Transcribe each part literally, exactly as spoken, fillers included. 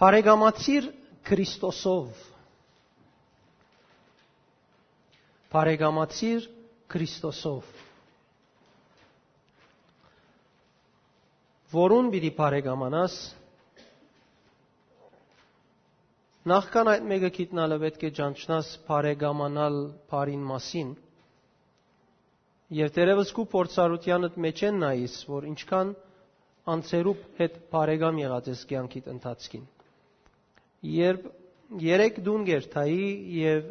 Բարեկամացիր Քրիստոսով։ Բարեկամացիր Քրիստոսով։ Որուն պիտի բարեկամանաս, նախքան այդ մէկը գիտնալը պէտք է ճանչնաս բարեկամանալ բարին մասին, եւ դերեւս քու փորձառութեանդ մէջէն նայիս, որ ինչքան անձերուդ հետ բարեկամ եղած ես կեանքիդ ընթացքին։ Երբ երեք տուն կ'երթայի եւ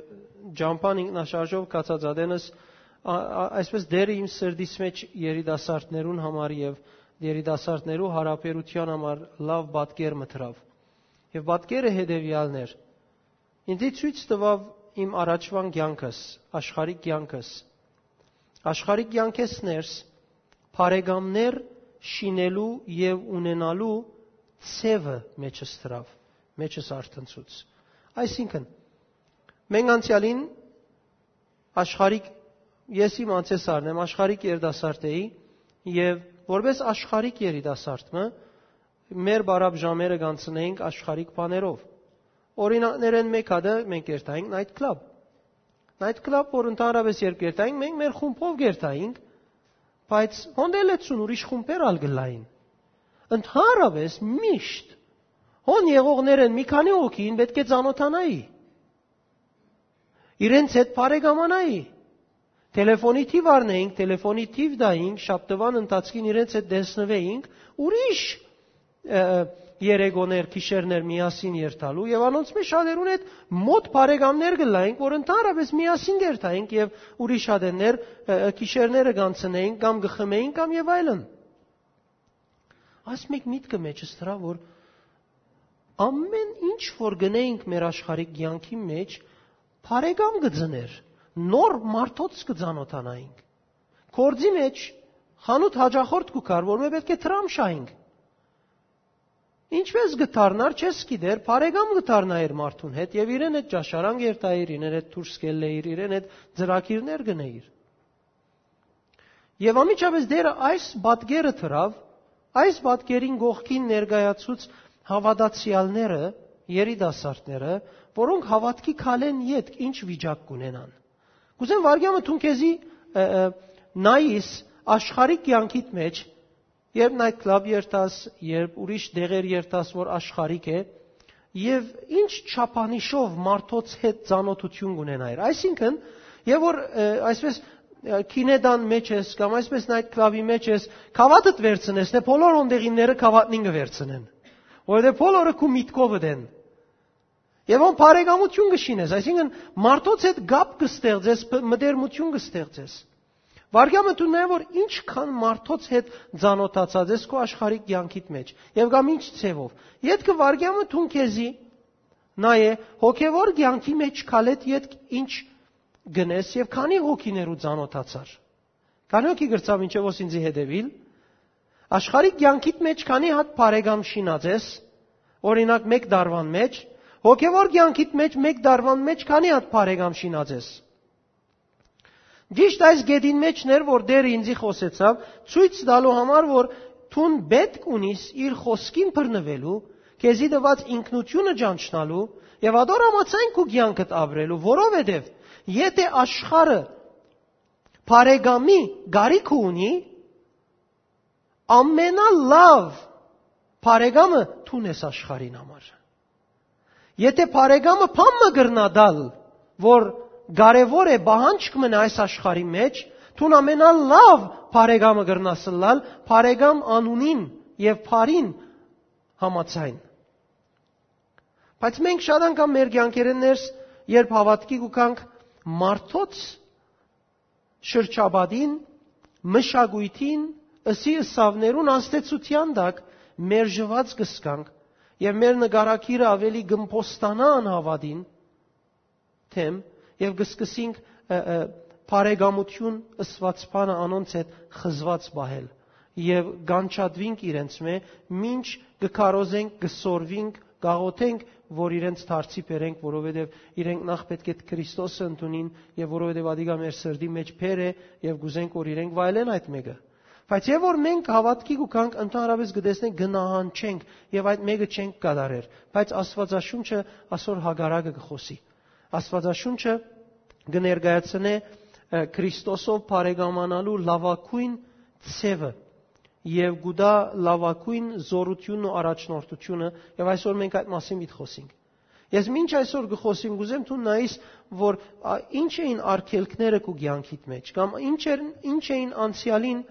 ճամբան ինքնաշարժով գացած ատենս, ա-, ա-, այսպես Տէրը իմ սրտիս մէջ երիտասարդներուն համար եւ երիտասարդներու յարաբերութեան համար լաւ պատկեր մը դրաւ։ Եւ պատկերը հետեւեալն էր. ինձի ցոյց տուաւ իմ առաջուան կեանքս, աշխարհիկ կեանքս։ Աշխարհիկ կեանքէս ներս բարեկամներ շինելու եւ ունենալու ձեւը մեջս դրաւ, մեջս արթնցուց։ Այսինքն, մենք անցեալին աշխարհիկ, ես իմ անցեսարն եմ, աշխարհիկ երիտասարդ էի եւ որպես աշխարհիկ երիտասարդ մը, մեր բարապ ժամերը կանցնեինք աշխարհիկ բաներով։ Օրինակներէն մէկ հատը մենք երթայինք night club։ Night club, որ ընդհանրապես երբ կերթայինք, մենք մեր խումբով կերթայինք, բայց հոն դե լեցուն ուրիշ խումբեր ալ կ'ըլլային։ Ընդհանրապես միշտ հոն եղողներէն մի քանի հոգին պէտք է ծանօթանայի, իրենց հետ բարեկամանայի, թելեֆոնի թիւ առնեինք, թելեֆոնի թիւ տայինք, շաբթուան ընթացքին իրենց հետ տեսնուէինք, ուրիշ, ը, երեկոներ, գիշերներ միասին երթալու, եւ անոնց մէջ շատերուն հետ մօտ բարեկամներ կ'ըլլայինք, որ ընդհանրապես միասին կերթայինք եւ ուրիշ ատեններ, ը, ը, գիշերները կանցնեինք կամ կը խմէինք կամ եւ այլն։ Այս մէկ միտքը մեջս դրաւ, որ ամեն ինչ որ գնայինք մեր աշխարհիկ կեանքի մէջ, բարեկամ կը ծնէր, նոր մարդոց կը ծանօթանայինք։ Գործի մէջ խանութ հաճախորդ կու գար, որ մէ պէտք է դրամ շահինք։ Ինչպէս կը դառնար, չես գիտեր, բարեկամ կը դառնայիր մարդուն հետ եւ իրեն հետ ճաշարան կ'երթայիր, իրեն հետ դուրս կ'ելլէիր, իրեն հետ ծրագիրներ կ'ընէիր։ Եւ անմիջապէս Տէրը այս պատկերը դրաւ, այս պատկերին կողքին ներկայացուց հաւատացեալները, երիտասարդները, որոնք հաւատքի քալեն ետք ինչ վիճակ կ'ունենան։ Կ'ուզեմ վարկյանը դուն քեզի, ը, ը, նայիս աշխարհի կեանքիդ մէջ, երբ night club երթաս, երբ ուրիշ տեղեր երթաս, որ աշխարհիկ է, եւ ինչ չափանիշով մարդոց հետ ծանօթութիւն կ'ունենայր։ Այսինքն, եւ որ, ը, այսպես, ը, կինետան մէջ ես, կամ այսպես night club-ի մէջ ես, գաւաթդ վերցնես, նե բոլոր հոն տեղինները գաւաթնին կը վերցնեն, որովհետեւ բոլորը քու միտքովդ են։ Եւ հոն բարեկամութիւն կը շինես, այսինքն մարդոց հետ կապ կը ստեղծես, բ-, մտերմութիւն կը ստեղծես։ Վարկյանը դու նայ, որ ինչքան մարդոց հետ ծանօթացած ես քո աշխարհի կեանքիդ մէջ, եւ կամ ինչ ձևով։ Ետքը վարկյանը դուն քեզի նայ է, հոգեվոր կեանքի մէջ քալետ ետք ինչ գնես եւ քանի հոգիներու ծանօթացար։ Քանի հոգի գրծաւ ինչեւ ո-, ինձի հետեւիլ, աշխարհի կեանքիդ մէջ քանի հատ բարեկամ շինած ես, օրինակ, մէկ տարուան մէջ, հոգեվոր կեանքիդ մէջ, մէկ տարուան մէջ քանի հատ բարեկամ շինած ես։ Ճիշդ այս գետին մէջն էր, որ Տէրը ինձի խօսեցաւ, ցոյց տալու համար, որ դուն պէտք ունիս իր խօսքին բռնուելու, քեզի տուած ինքնութիւնը ճանչնալու եւ ատոր համաձայն քու կեանքդ ապրելու, որովհետեւ եթէ աշխարհը բարեկամի կարիքը ունի, ամենալաւ բարեկամը դուն ես աշխարհին համար։ Եթէ բարեկամը բան մը կրնայ տալ, որ կարեւոր է, պահանջք մնայ այս աշխարհի մէջ, դուն ամենալաւ բարեկամը կրնաս ըլլալ, բարեկամ անունին եւ բարին համաձայն։ Բայց մենք շատ անգամ մեր կեանքերէն ներս, երբ հաւատքի կու գանք, մարդոց շրջապատին, մշակոյթին, ըսի ըսաւներուն ազդեցութեան տակ մերժուած կ'ըսկանք եւ մեր նկարագիրը աւելի կ'ըմբոստանայ անհաւատին դէմ եւ կ'սկսինք, ը, ը, բարեկամութիւն ըսուած բանը անոնց հետ խզուած պահել եւ կանչատուինք իրենց մէ, մինչ կը քարոզենք, կը սորվինք, կաղոթենք, որ իրենց դարձի բերենք, որովհետեւ իրենք նախ պէտք է Քրիստոսը ընդունին եւ որովհետեւ ադիկա մեր սրտի մէջ բեր է եւ կ'ուզենք, որ իրենք վայելեն այդ մէկը։ Բայց եւ որ մենք հաւատքի կու գանք, ընդհանրապէս կը տեսնենք, կը նահանջենք եւ այդ մէկը չենք կատարեր։ Բայց Աստուածաշունչը ասոր հակառակը կը խօսի։ Աստուածաշունչը կը ներկայացնէ, ը, Քրիստոսով բարեկամանալու լաւագոյն ձեւը եւ կու տայ լաւագոյն զօրութիւնն ու առաջնորդութիւնը, եւ այսօր մենք այդ մասին պիտի խօսենք։ Ես մինչ այսօր կը խօսիմ, կ'ուզեմ դուն նայես, որ, ա, ինչ էին արգելքները քու կեանքիդ մէջ, կամ ինչ էր, ինչ էին անցեալին,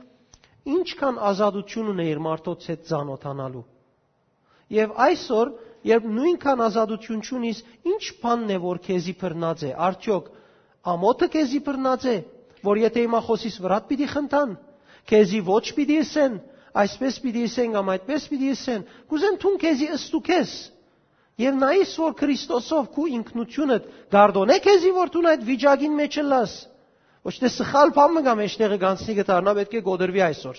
ինչքան ազատութիւն ունէիր մարդոց հետ ծանօթանալու։ Եւ այսօր, երբ նոյնքան ազատութիւն չունիս, ի՞նչ բանն է, որ քեզի բռնած է, արդեօք ամոթը քեզի բռնած է, որ եթէ հիմա խօսիս, վրադ պիտի խնդան, քեզի ոչ պիտի ըսեն, այսպես պիտի ըսեն կամ այդպես պիտի ըսեն, կ'ուզեմ դուն քեզի ըստուգես եւ նայես, որ Քրիստոսով քու ինքնութիւնդ կ'արտօնէ քեզի, որ դուն այդ վիճակին մէջ ըլլաս։ Ոչ թէ սխալ բան մը կամ էշտեղը գանցնի կը դառնայ, պէտք է կոտրուի այսօր։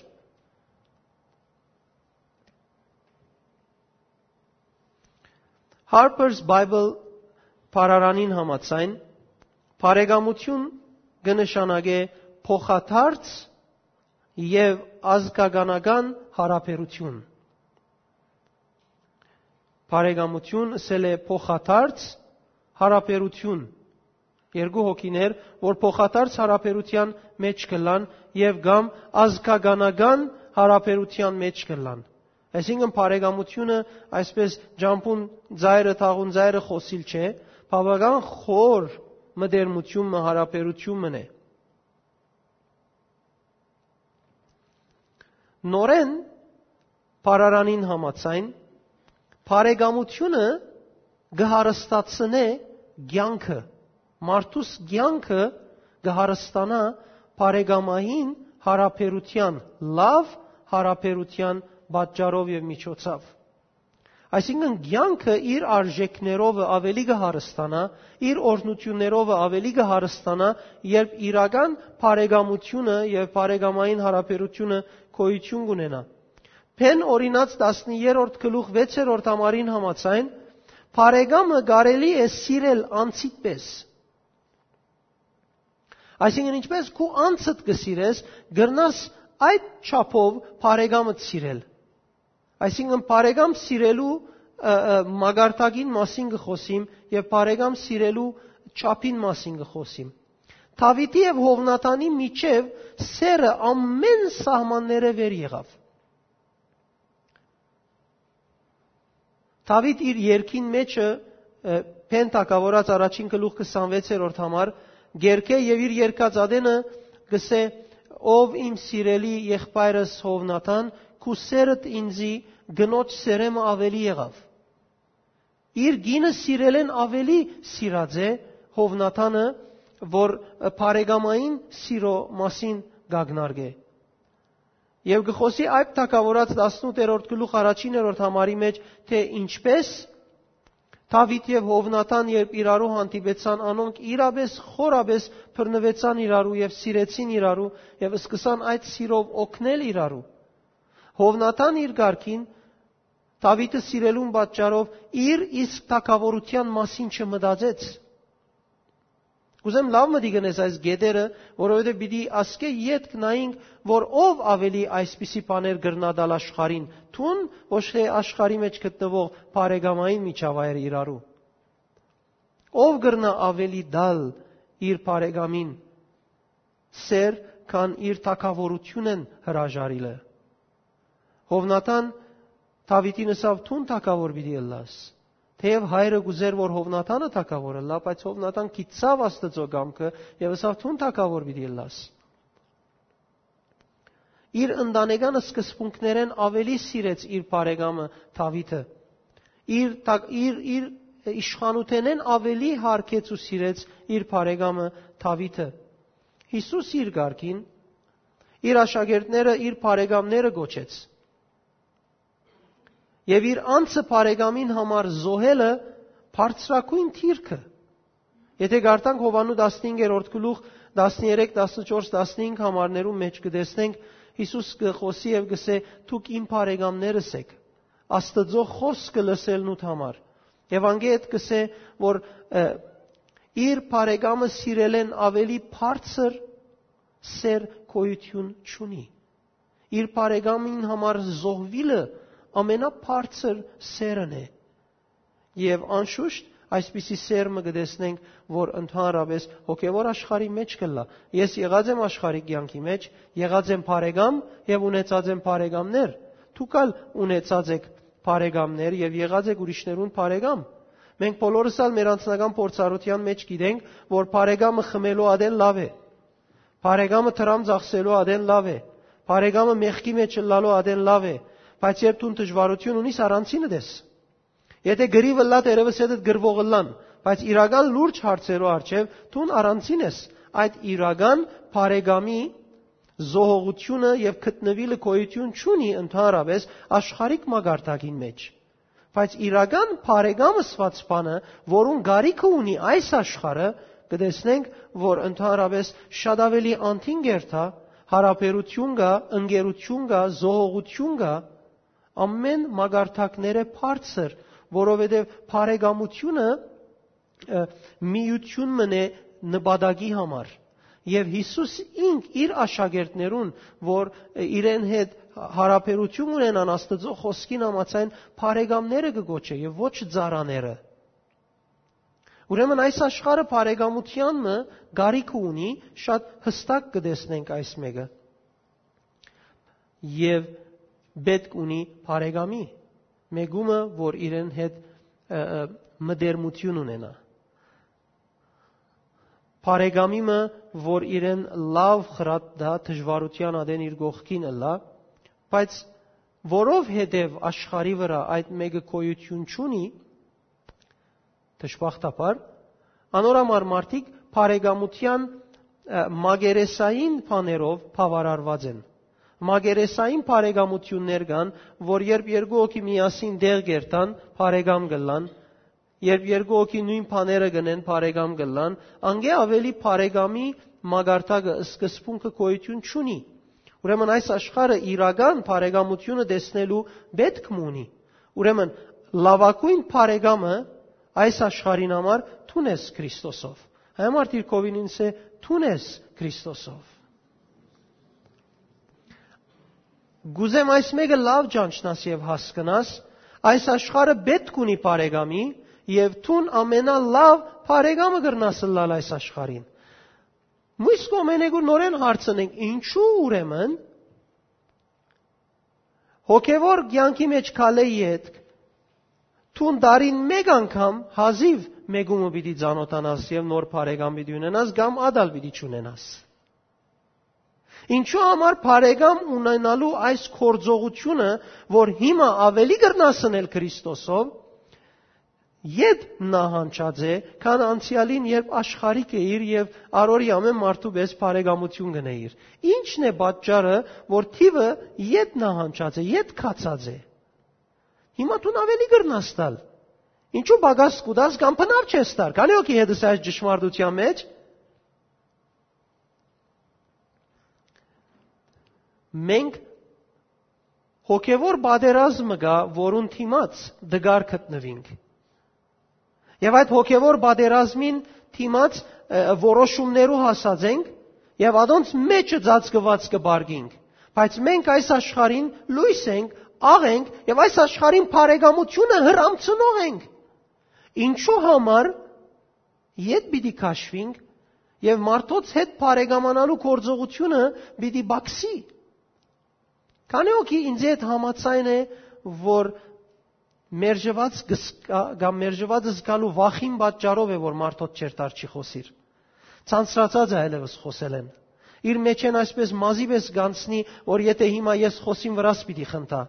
Harper's Bible բառարանին համաձայն, բարեկամութիւն կը նշանակէ փոխադարձ եւ ազգականական յարաբերութիւն։ Բարեկամութիւն ըսել է փոխադարձ յարաբերութիւն։ Երկու հոգիներ, որ փոխադարձ յարաբերութեան մէջ կ'ըլլան եւ կամ ազգականական յարաբերութեան մէջ կ'ըլլան։ Այսինքն բարեկամութիւնը այսպես ջամբուն ծայրը, թաղուն ծայրը խօսիլ չէ, բաւական խոր մտերմութիւն մը, յարաբերութիւն մը է։ Նորէն բառարանին համաձայն, բարեկամութիւնը կը հարստացնէ կեանքը, մարդուս կեանքը կը հարստանայ բարեկամային յարաբերութեան, լաւ յարաբերութեան պատճառով եւ միջոցով։ Այսինքն, կեանքը իր արժեքներովը աւելի կը հարստանայ, իր օրհնութիւններովը աւելի կը հարստանայ, երբ իրական բարեկամութիւնը եւ բարեկամային յարաբերութիւնը գոյութիւն կ'ունենայ։ Բեն օրինաց տասներորդ գլուխ վեցերորդ համարին համաձայն, բարեկամը կարելի է սիրել անձիդ պէս։ Այսինքն, ինչպես քու անձդ կը սիրես, կրնաս այդ չափով բարեկամդ սիրել։ Այսինքն, բարեկամ սիրելու, ը, ը, մակարդակին մասին կը խօսիմ եւ բարեկամ սիրելու չափին մասին կը խօսիմ։ Դաւիթի եւ Յովնաթանի միջեւ սերը ամէն սահմանները վեր եղաւ։ Դաւիթ իր երկին մէջը, ը, Բեն թագաւորաց առաջին գլուխ քսանվեցերորդ համար, կերկէ եւ իր երկած ատենը կ'ըսէ. «Ով իմ սիրելի եղբայրս Յովնաթան, քու սերդ ինծի կնոջ սերեմը աւելի եղաւ»։ Իր կինը սիրելէն աւելի սիրած է Յովնաթանը, որ բարեկամային սիրո մասին կ'ակնարկէ։ Եւ կը խօսի Այբ թագաւորաց տասնութերորդ գլուխ առաջիներորդ համարի մէջ, թէ ինչպես Դաւիթ եւ Յովնաթան, երբ իրարու հանդիպեցան, անոնք իրապէս խորապէս բռնուեցան իրարու եւ սիրեցին իրարու եւ սկսան այդ սիրով օգնել իրարու։ Յովնաթան իր կարգին Դաւիթը սիրելուն պատճառով իր իսկ թագաւորութեան մասին չմտածեց։ Կ'ուզեմ լաւ մտի գնես այս գետերը, որովհետեւ պիտի ասկէ ետք նայենք, որ ով աւելի այսպիսի բաներ կրնայ տալ աշխարհին, դուն, ոչ թէ աշխարհի մէջ գտնուող բարեկամային միջավայրը իրարու։ Ով կրնայ աւելի տալ իր բարեկամին սեր, քան իր թագաւորութիւնն հրաժարիլը։ Յովնաթան Դաւիթին ըսաւ. «Դուն թագաւոր պիտի ըլլաս»։ Թէեւ հայրը կ'ուզէր, որ Յովնաթանը թագաւոր ըլլայ, բայց Յովնաթան գիտցաւ Աստուծոյ կամքը եւ ըսաւ. «Դուն թագաւոր պիտի ըլլաս»։ Իր ընտանեկան սկզբունքներէն աւելի սիրեց իր բարեկամը Դաւիթը։ Իր թագ-, իր, իր իշխանութենէն աւելի յարգեց ու սիրեց իր բարեկամը Դաւիթը։ Յիսուս իր կարգին իր աշակերտները իր բարեկամները կոչեց։ Եւ իր անձը բարեկամին համար զոհելը բարձրագոյն դիրքը։ Եթէ կարդանք Յովհաննու տասնհինգերորդ գլուխ, տասներեք, տասնչորս, տասնհինգ համարներու մէջ կը տեսնենք, Յիսուս կը խօսի եւ կ'ըսէ. «Դուք իմ բարեկամներս էք, Աստուծոյ խօսքը լսելնուդ համար»։ Եւ անկէ հետ կ'ըսէ, որ, ը, իր բարեկամը սիրելէն աւելի բարձր սեր գոյութիւն չունի։ Իր բարեկամին համար զոհուիլը ամենաբարձր սէրն է։ Եւ անշուշտ այսպիսի սէր մը կը տեսնենք, որ ընդհանրապես հոգեւոր աշխարհի մէջ կ'ըլլայ։ Ես եղած եմ աշխարհի կեանքի մէջ, եղած եմ բարեկամ եւ ունեցած եմ բարեկամներ։ Դուք ալ ունեցած էք բարեկամներ եւ եղած էք ուրիշներուն բարեկամ։ Մենք բոլորս ալ մեր անձնական փորձառութեան մէջ գիտենք, որ բարեկամը խմելու ատեն լաւ է։ Բարեկամը դրամ ծախսելու ատեն լաւ է։ Բարեկամը մեղքի մէջ ըլլալու ատեն լաւ է։ Բայց երբ դուն դժուարութիւն ունիս, առանձինդ ես։ Եթէ կռիւ ըլլայ, դերևս հետդ կռուող ըլլան, բայց իրական լուրջ հարցերու առջեւ դուն առանձին ես։ Այդ իրական բարեկամի զոհողութիւնը եւ գտնուիլը գոյութիւն չունի ընդհանրապես աշխարհիկ մակարդակին մէջ։ Բայց իրական բարեկամ ըսուած բանը, որուն կարիքը ունի այս աշխարհը, կը տեսնենք, որ ընդհանրապես շատ աւելի անդին կ'երթայ, յարաբերութիւն կայ, ընկերութիւն կայ, զոհողութիւն կայ, ամէն մակարդակներէ բարձր, որովհետեւ բարեկամութիւնը, ը, միութիւն մըն է նպատակի համար։ Եւ Յիսուս ինք իր աշակերտներուն, որ, ը, իրեն հետ յարաբերութիւն ունենան Աստուծոյ խօսքին համաձայն, բարեկամները կը կոչէ եւ ոչ ծառաները։ Ուրեմն այս աշխարհը բարեկամութեան մը կարիքը ունի, շատ յստակ կը տեսնենք այս մէկը։ Եւ պէտք ունի բարեկամի, մէկումը, որ իրեն հետ, ը, ը, մտերմութիւն ունենայ։ Բարեկամի մը, որ իրեն լաւ խրատ տայ, դժուարութեան ատեն իր կողքին ըլլայ, բայց որովհետեւ աշխարհի վրայ այդ մէկը գոյութիւն չունի, դժբախտաբար, անոր համար մարդիկ բարեկամութեան, ը, մակերեսային բաներով բաւարարուած են։ Մակերեսային բարեկամութիւններ կան, որ երբ երկու հոգի միասին տեղ կերթան, բարեկամ կ'ըլլան, երբ երկու հոգի նոյն բաները կ'ընեն, բարեկամ կ'ըլլան, անկէ աւելի բարեկամի մակարդակը, սկզբունքը գոյութիւն չունի։ Ուրեմն այս աշխարհը իրական բարեկամութիւնը տեսնելու պէտք մը ունի։ Ուրեմն լաւագոյն բարեկամը այս աշխարհին համար դուն ես Քրիստոսով։ Հայ մարդիկ կ'ըսին ինձ, դուն ես Քրիստոսով։ Կ'ուզեմ այս մէկը լաւ ճանչնաս եւ հասկնաս, այս աշխարհը պէտք ունի բարեկամի, եւ դուն ամենալաւ բարեկամը կրնաս ըլլալ այս աշխարհին։ Մյուս կողմէն, եկուր նորէն հարցնենք, ինչու ուրեմն հոգեվոր կեանքի մէջ քալէ ետք, դուն տարին մէկ անգամ հազիւ մէկումը պիտի ծանոթանաս եւ նոր բարեկամ պիտի ունենաս կամ ատալ պիտի չունենաս։ Ինչու համար բարեկամ ունենալու այս գործողությունը, որ հիմա աւելի կրնաս ընել Քրիստոսով, ետ նահանջած է, քան անցեալին, երբ աշխարհիկ էիր եւ առօրի ամէն մարդու պէս բարեկամութիւն կ'ընէիր։ Ի՞նչն է պատճառը, որ թիւը ետ նահանջած է, ետ գացած է։ Հիմա դուն աւելի կրնաս տալ։ Ինչու պակաս կու տաս կամ բնավ չես տար։ Քանի՞ հոգի հետ ես այս ճշմարտության մէջ։ Մենք հոգեվոր պատերազմը կայ, որուն դիմաց դգար գտնուինք։ Եւ այդ հոգեվոր պատերազմին դիմաց, ը, որոշումներու հասած ենք եւ ադոնց մէջը ծածկուած կը պարկինք։ Բայց մենք այս աշխարհին լոյս ենք, աղ ենք եւ այս աշխարհին բարեկամութիւնը հրամցնող ենք։ Ինչու համար ետ պիտի քաշվինք եւ մարդոց հետ բարեկամանալու գործողությունը պիտի պակսի։ Քանի՞ հոգի ինձ հետ համաձայն է, որ մերժուած կը զգա-, կամ մերժուած զգալու վախին պատճառով է, որ մարդոց չերթար չի խօսիր։ Ցանցրացած է այլևս խօսելէն։ Իր մեջ են այսպես մազի պես գանցնի, որ եթէ հիմա ես խօսին վրաս պիտի խնդա։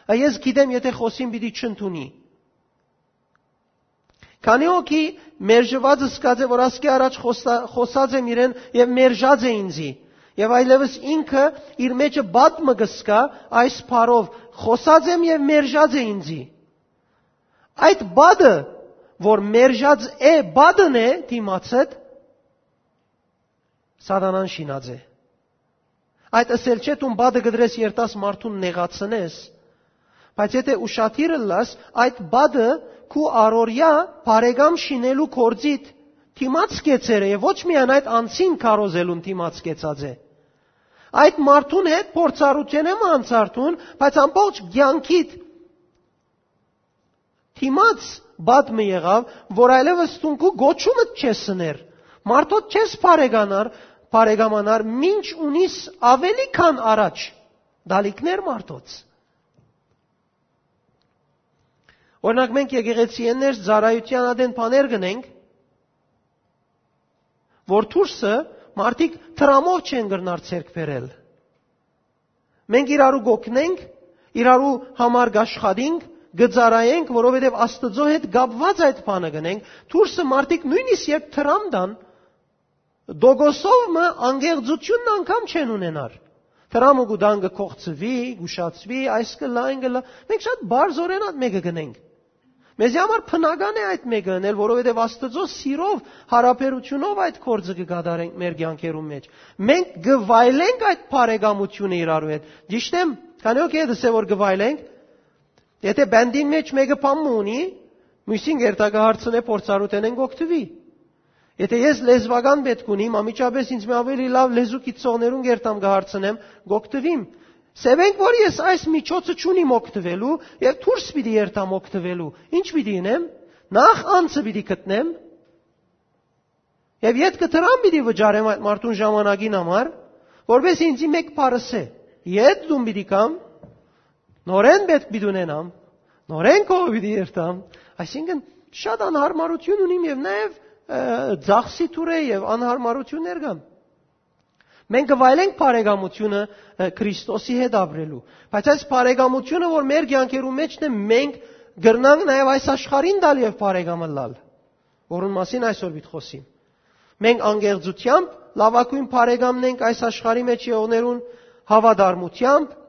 Ա ես գիտեմ, եթէ խօսին պիտի չընդունի։ Քանի՞ հոգի մերժուած զգած է, որ ասկէ առաջ խոսա-, խօսած եմ իրեն եւ մերժած է ինձի։ Եւ այլևս ինքը իր մեջը բադ մը կը զգայ այս բառով. «Խօսած եմ եւ մերժած է ինձի»։ Այդ բադը, որ մերժած է, բադն է դիմացդ, սատանան շինած է։ Այդ ըսել չէ, դուն բադը կդրես երթաս մարդուն նեղացնես, բայց եթէ ուշադիր ըլլաս, այդ բադը քու առօրյա բարեկամ շինելու գործիդ դիմաց կեցեր է, եւ ոչ միայն այդ, անձին քարոզելուն դիմաց կեցած է։ Այդ մարդուն հետ փորձառութենէ մը անցար դուն, բայց ամբողջ կեանքիդ դիմաց բադ մը եղաւ, որ այլեւս դուն քու գոչումդ չես սներ, մարդոց չես բարեկանար, բարեկամանար, մինչ ունիս ավելի քան առաջ դալիքներ մարդոց։ Օրինակ, մենք եկեղեցի ներս ծառայութեան ատեն բաներ կ'ընենք, որ դուրսը մարդիկ դրամով չեն կրնար ձեռք բերել։ Մենք իրարու կ'օգնենք, իրարու համար կ'աշխատենք, կը ծառայենք, որովհետեւ Աստուծոյ հետ կապուած այդ բանը կ'ընենք։ Դուրսը մարդիկ նոյնիսկ երբ դրամ տան, տոկոսով մը անկեղծութիւնն անգամ չեն ունենար։ Դրամը կու տան, կը կոխցուի, կ'ուշացուի, այս կ'ըլլայ, այն կ'ըլլայ։ Մենք շատ բարձրօրէն այդ մէկը կ'ընենք։ Մեզի համար բնական է այդ մէկը ընել, որովհետեւ Աստուծոյ սիրով, յարաբերութիւնով այդ գործը կը կատարենք մեր կեանքերուն մէջ։ Մենք կը վայելենք այդ բարեկամութիւնը իրարու հետ։ Ճիշդ եմ, քանի՞ հոգի է դսե որ կը վայելենք։ Եթե բանտին մէջ մէկը բան մը ունի, միւսին կ'երթայ կը հարցնէ փորձառութենէն կ'օգտուի։ Եթե ես լեզուական պէտք ունիմ, անմիջապէս ինձ մը ավելի լաւ լեզու գիտցողներուն կ'երթամ կը հարցնեմ, կ'օգտուիմ։ Սեւենք որ ես այս միջոցը չունիմ օգտուելու եւ դուրս պիտի երթամ օգտուելու։ Ի՞նչ պիտի ընեմ։ Նախ անձը պիտի գտնեմ եւ ետքը դրամ պիտի վճարեմ այդ մարդուն ժամանակին համար, որպէս ինձի մէկ բառ ըսէ։ Ետ դուն պիտի կամ, նորէն պէտք պիտի ունենամ, նորէն քովը պիտի երթամ, այսինքն շատ անհարմարութիւն ունիմ եւ նաեւ, ը, ծախսի թուր է եւ անհարմարութիւններ կան։ Մենք կը վայելենք բարեկամութիւնը, ը, Քրիստոսի հետ ապրելու, բայց այս բարեկամութիւնը, որ մեր կեանքերու մէջն է, մենք կրնանք նաեւ այս աշխարհին տալ եւ բարեկամ ըլլալ, որուն մասին այսօր պիտի խոսիմ։ Մենք անկեղծութեամբ լաւագոյն բարեկամն ենք այս աշխարհի մէջ եղողներուն, հաւատարմութեամբ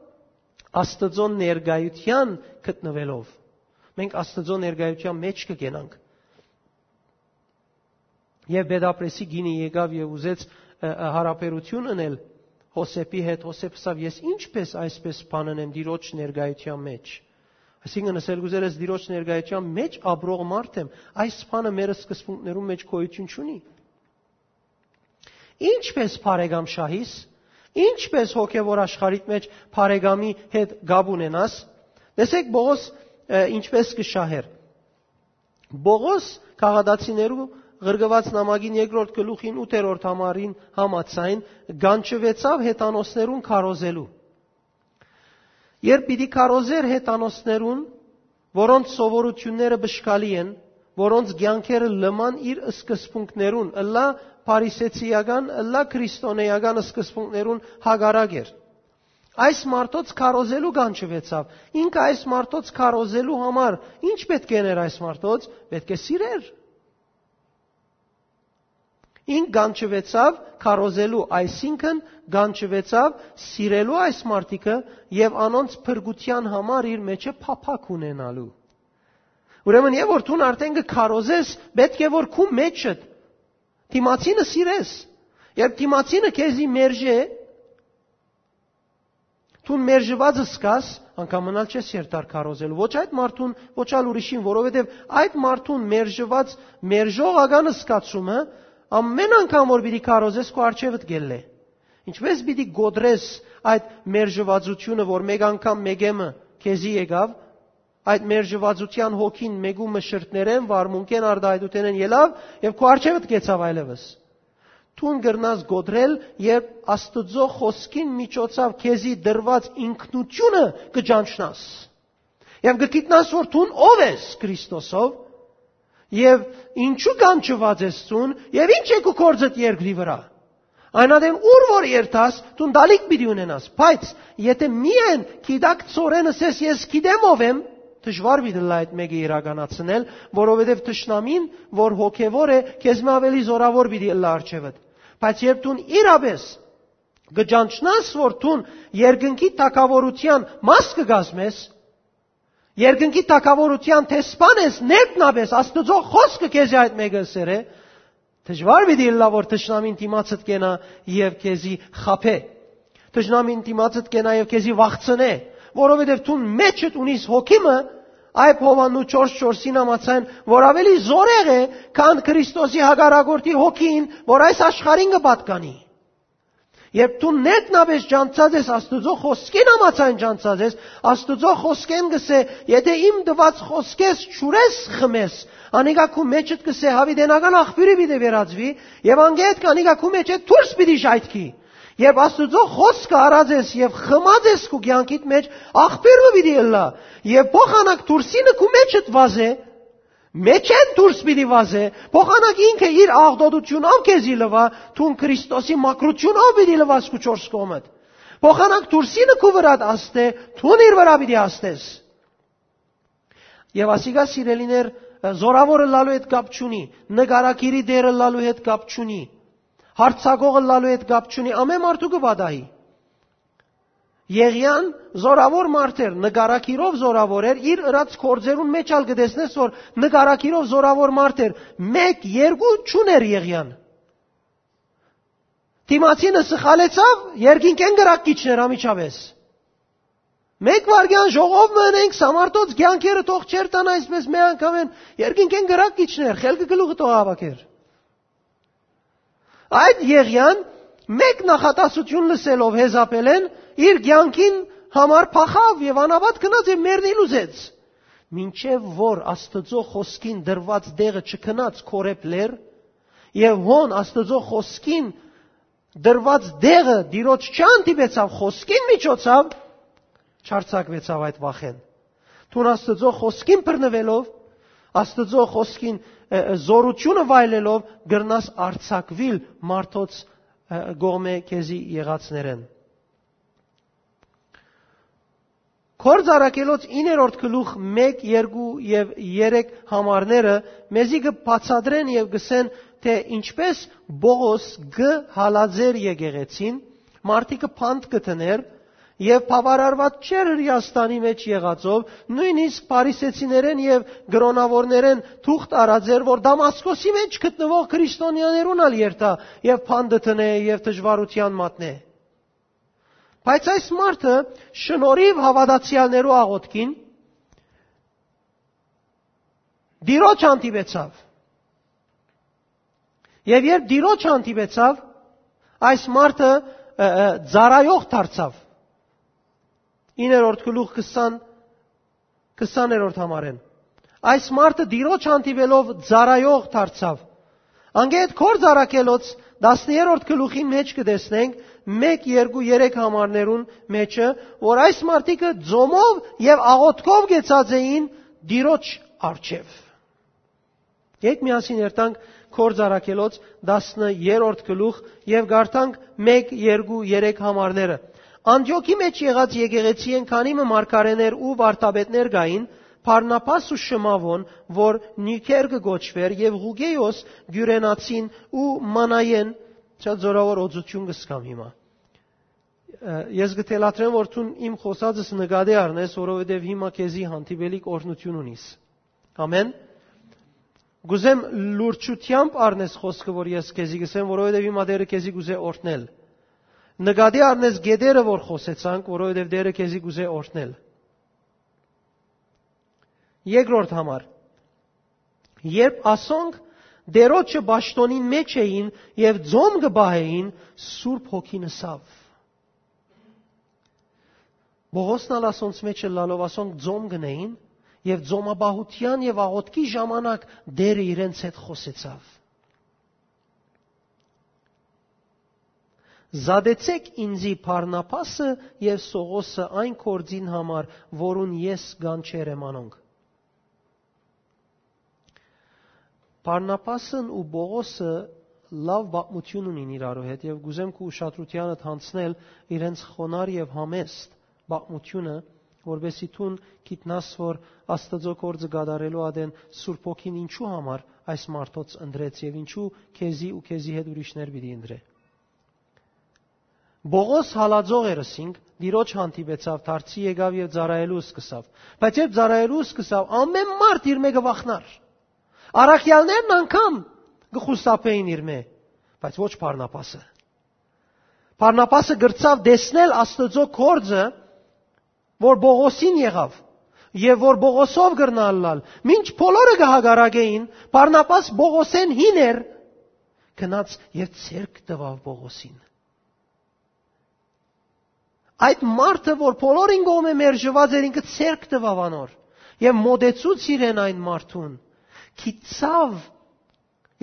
Աստուծոյ ներկայութեան գտնուելով։ Մենք Աստուծոյ ներկայութեան մէջ կը կենանք։ Եվ Պետապրեսի կինը եկաւ եւ ուզեց, ը, ը, յարաբերութիւն ընել Յովսէփի հետ։ Յովսէփ ըսաւ. «Ես ինչպէս այսպէս բան ընեմ Տիրոջ ներկայութեան մէջ»։ Այսինքն, ըսել կ'ուզեր ես. «Տիրոջ ներկայութեան մէջ ապրող մարդ եմ, այս բանը մեր սկզբունքներուն մէջ գոյութիւն չունի»։ Ինչպէս բարեկամ շահիս, ինչպէս հոգեւոր աշխարհիդ մէջ բարեկամի հետ կապ ունենաս, տեսեք Պողոս, ը, ինչպէս կը շահեր։ Պողոս Գաղատացիներու ղրկուած նամակին երկրորդ գլուխին ութերորդ համարին համաձայն կանչուեցաւ հեթանոսներուն քարոզելու։ Երբ պիտի քարոզեր հեթանոսներուն, որոնց սովորութիւնները բշկալի են, որոնց կեանքերը լման իր սկզբունքներուն, ըլլայ փարիսեցիական, ըլլայ քրիստոնէական սկզբունքներուն հակառակ էր։ Այս մարդոց քարոզելու կանչուեցաւ։ Ինքը այս մարդոց քարոզելու համար ի՞նչ պէտք է ըներ այս մարդոց։ Պէտք է սիրեր։ Ինք կանչուեցաւ քարոզելու, այսինքն՝ կանչուեցաւ սիրելու այս մարդիկը եւ անոնց փրկութեան համար իր մէջը փափաք ունենալու։ Ուրեմն, երբ որ դուն արդեն կը քարոզես, պէտք է որ քու մէջդ դիմացինը սիրես։ Երբ դիմացինը քեզի մերժէ, դուն մերժուած զգաս, անկամ մնալ չես երթար քարոզելու ոչ այդ մարդուն, ոչ ալ ուրիշին, որովհետեւ այդ մարդուն մերժուած, մերժողական զգացումը ամէն անգամ որ պիտի քարոզես, քու առջեւդ կ'ելլէ։ Ինչպէս պիտի կոտրես այդ մերժուածությունը, որ մէկ անգամ մէկէ մը քեզի եկաւ, այդ մերժուածութեան հոգին մէկու մը շրթներէն, վարմունքէն, արտայայտութենէն ելաւ եւ քու առջեւդ կեցաւ այլեւս։ Դուն կրնաս կոտրել, երբ Աստուծոյ խօսքին միջոցաւ քեզի տրուած ինքնութիւնը կը ճանչնաս։ Եւ կը գիտնաս, որ դուն ով ես Քրիստոսով, եւ ինչու կանչուած ես դուն, եւ ինչ է քու գործդ երկրի վրա։ Այն ատեն ուր որ երթաս, դուն դալիք պիտի ունենաս, բայց եթե միայն գիտակցօրէն ըսես. «Ես գիտեմ ով եմ», դժուար պիտի ըլլայ այդ մէկը իրականացնել, որովհետեւ թշնամին, որ հոգեւոր է, քեզմէ ավելի զօրաւոր պիտի ըլլայ առջեւդ։ Բայց երբ դուն իրապէս կը ճանչնաս, որ դուն երկնքի թագաւորութեան մաս կը կազմես, երկնքի թագաւորութեան դեսպան ես, ներքնապէս Աստուծոյ խօսքը քեզի այդ մէկը ըսեր է, դժուար պիտի ըլլայ, որ թշնամին դիմացդ կենայ եւ քեզի խաբէ։ Թշնամին դիմացդ կենայ եւ քեզի վախցնէ, որովհետեւ դուն մէջդ ունիս հոգի մը, այբ Յովհաննու չորս չորսին համաձայն, որ ավելի զօրեղ է, քան Քրիստոսի հակառակորդի հոգին, որ այս աշխարհին կը պատկանի։ Երբ դու ներքնապէս ճանչցած ես, Աստուծոյ խօսքին համաձայն ճանչցած ես, Աստուծոյ խօսքէն կ'ըսէ. «Եթէ իմ տուած խօսքէս չուրես խմես», անիկա քու մէջդ կ'ըսէ. «Յաւիտենական աղբիւրը պիտի վերածուի», եւ անգետ անիկա քու մէջէ դուրս պիտի ժայթքի։ Երբ Աստուծոյ խօսքը առած ես եւ խմած ես քու կեանքիդ մէջ, աղբիւր մը պիտի ըլլայ, եւ փոխանակ դուրսինը քու մէջդ վազէ, մէջէն դուրս պիտի վազէ, փոխանակ ինքը իր աղտոտութիւնով քեզի լուայ, դուն Քրիստոսի մաքրութիւնով պիտի լուաս քու չորս կողմդ։ Փոխանակ դուրսինը քու վրադ ազդէ, դուն իր վրայ պիտի ազդես։ Եւ ասիկա, սիրելիներ, զորաւոր ըլլալու հետ կապ չունի, նկարագիրի տեր ըլլալու հետ կապ չունի, հարցակող ըլլալու հետ կապ չունի, ամէն մարդու կը պատահի։ Եղիան զորաւոր մարդ էր, նկարագիրով զորաւոր էր, իր ըրած գործերուն մէջ ալ կը տեսնես, որ նկարագիրով զորաւոր մարդ էր, մէկ, երկու չունէր Եղիան։ Դիմացինը սխալեցաւ, երկինքէն կրակ կ'իջնէր անմիջապէս։ Մէկ վայրկեան ժողով մը ընենք, սա մարդոց կեանքերը թող չերթան այսպէս մէ անգամէն, երկինքէն կրակ կ'իջնէր, խելքը գլուխը թող հաւաքէր։ Այդ Եղիան, մէկ նախատասութիւն լսելով Յեզապէլէն, իր կեանքին համար փախաւ եւ անապատ գնաց եւ մեռնիլ ուզեց։ Մինչեւ որ Աստուծոյ խօսքին տրուած տեղը չգնաց Քորեբ լեռ, եւ հոն Աստուծոյ խօսքին տրուած տեղը Տիրոջ չհանդիպեցաւ խօսքին միջոցաւ, չարձակուեցաւ այդ վախէն։ Դուն Աստուծոյ խօսքին բռնուելով, Աստուծոյ խօսքին, ը, ը, զօրութիւնը վայելելով, կրնաս արձակուիլ մարդոց, ը, կողմէ քեզի եղածներէն։ Գործ առաքելոց իններորդ գլուխ մէկ, երկու եւ երեք համարները մեզի կը բացատրեն եւ կ'ըսեն, թէ ինչպէս Պողոս կը հալածէր եկեղեցին, մարդիկը փանդ կը դներ, եւ բաւարարուած չէր Հրեաստանի մէջ եղածով, նոյնիսկ փարիսեցիներէն եւ կրօնաւորներէն թուղթ առած էր, որ Դամասկոսի մէջ գտնուող քրիստոնեաներուն ալ երթայ եւ փանդ դնէ եւ դժուարութեան մատնէ։ Բայց այս մարդը շնորհիւ հաւատացեալներու աղօթքին Տիրոջ հանդիպեցաւ։ Եւ երբ Տիրոջ հանդիպեցաւ, այս մարդը, ը, ը, ծառայող դարձաւ։ Իններորդ գլուխ քսան, քսաներորդ համարէն։ Այս մարդը Տիրոջ հանդիպելով ծառայող դարձաւ։ Անգետ Գործ առաքելոց տասներորդ գլուխին մէջ կը տեսնենք մէկ, երկու, երեք համարներուն մէջը, որ այս մարդիկը ծոմով եւ աղօթքով կեցած էին Տիրոջ առջեւ։ Եկ միասին երթանք Գործ առաքելոց տասներորդ գլուխ եւ կարդանք մէկ, երկու, երեք համարները։ Անտիոքի մէջ եղած եկեղեցիէն քանի մը մարգարէներ ու վարդապետներ կային, Բարնաբաս ու Շմաւոն, որ Նիքեր կը կոչուէր, եւ Ղուկէոս Կիւրենացին ու Մանայեն, շատ զորաւոր օծութիւն կը սկամ հիմա։ Ը, ես կը թելադրեմ, որ դուն իմ խօսածս նկատի առնես, որովհետեւ հիմա քեզի հանդիպելիք օրհնութիւն ունիս։ Ամեն։ Կուզեմ լուրջութեամբ առնես խօսքը, որ ես քեզի կ'ըսեմ, որովհետեւ հիմա Տէրը քեզի կ'ուզէ օրհնել։ Նկատի առնես գետերը, որ խօսեցանք, որովհետեւ Տէրը քեզի կ'ուզէ օրհնել։ Երկրորդ համար։ Երբ ասոնք Տէրոջը պաշտօնին մէջ էին եւ ծոմ կը պահէին, Սուրբ Հոգին ըսաւ։ Պողոսն ալ ասոնց մէջ ըլլալով, ասոնք ծոմ կ'ընէին եւ ծոմապահութեան եւ աղօթքի ժամանակ Տէրը իրենց հետ խօսեցաւ։ «Զատեցէք ինծի Բարնաբասը եւ Սողոսը այն գործին համար, որուն ես կանչեր եմ անոնք»։ Բարնաբասն ու Պողոսը լաւ պատմութիւն ունին իրարու հետ եւ կ'ուզեմ քու ուշադրութեանդ յանցնել իրենց խոնար եւ համեստ պատմութիւնը, որպեսզի դուն գիտնաս, որ Աստուծոյ գործը կատարելու ատեն Սուրբ Հոգին ինչու համար այս մարդոց ընտրեց եւ ինչու քեզի ու քեզի հետ ուրիշներ պիտի ընտրէ։ Պողոս հալածող էր, ըսինք, Տիրոջ հանդիպեցաւ, դարձի եկաւ եւ ծառայելու սկսաւ։ Բայց երբ ծառայելու սկսաւ, ամէն մարդ իր մէկը վախնար։ Առաքյալներն անգամ կը խուսափէին իր մէ, բայց ոչ Բարնաբասը։ Բարնաբասը կրցաւ տեսնել Աստուծոյ գործը, որ Պողոսին եղաւ, եւ որ Պողոսով կրնայ ըլլալ։ Մինչ բոլորը կը հակառակէին, Բարնաբաս Պողոսէն հին էր, գնաց եւ ձեռք տուաւ Պողոսին։ Այդ մարդը, որ բոլորին կողմէ մերժուած էր, ինքը ձեռք տուաւ անոր եւ մոտեցուց իրեն այն մարդուն, գիտցաւ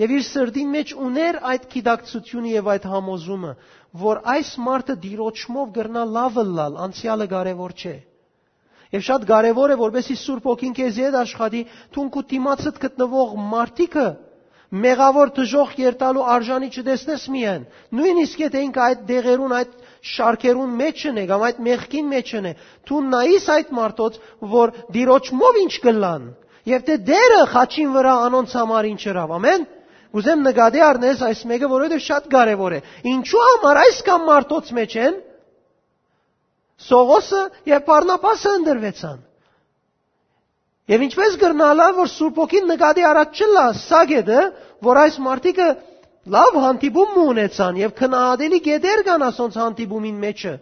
եւ իր սրտին մեջ ուներ այդ գիտակցությունը եւ այդ համոզումը, որ այս մարդը Տիրոջմով կրնայ լաւ ըլլալ, անցեալը կարեւոր չէ։ Եւ շատ կարեւոր է, որպեսզի Սուրբ Հոգին քեզի հետ աշխատի, դուն քու դիմացդ գտնուող մարդիկը մեղաւոր դժոխք երթալու արժանի չտեսնես միայն, նոյնիսկ եթէ ինքը այդ դեղերուն, այդ շարքերուն մէջն է կամ այդ մեղքին մէջն է, դուն նայիս այդ մարդոց, որ Տիրոջմով ինչ կ'ըլլան, եւ թէ Տէրը խաչին վրայ անոնց համար ինչ ըրաւ։ Ամէն։ Կ'ուզեմ նկատի առնես այս մէկը, որովհետեւ շատ կարեւոր է։ Ինչու համար այսքան մարդոց մէջ են Սողոսը եւ Բարնաբասը ընտրուեցան։ Եւ ինչպես կրնալա, որ Սուրբ Հոգին նկատի առած չըլլայ սա կետը, որ այս մարդիկը լաւ հանդիպում մը ունեցան եւ քնահատելի կետեր կան ասոնց հանդիպումին մեջը։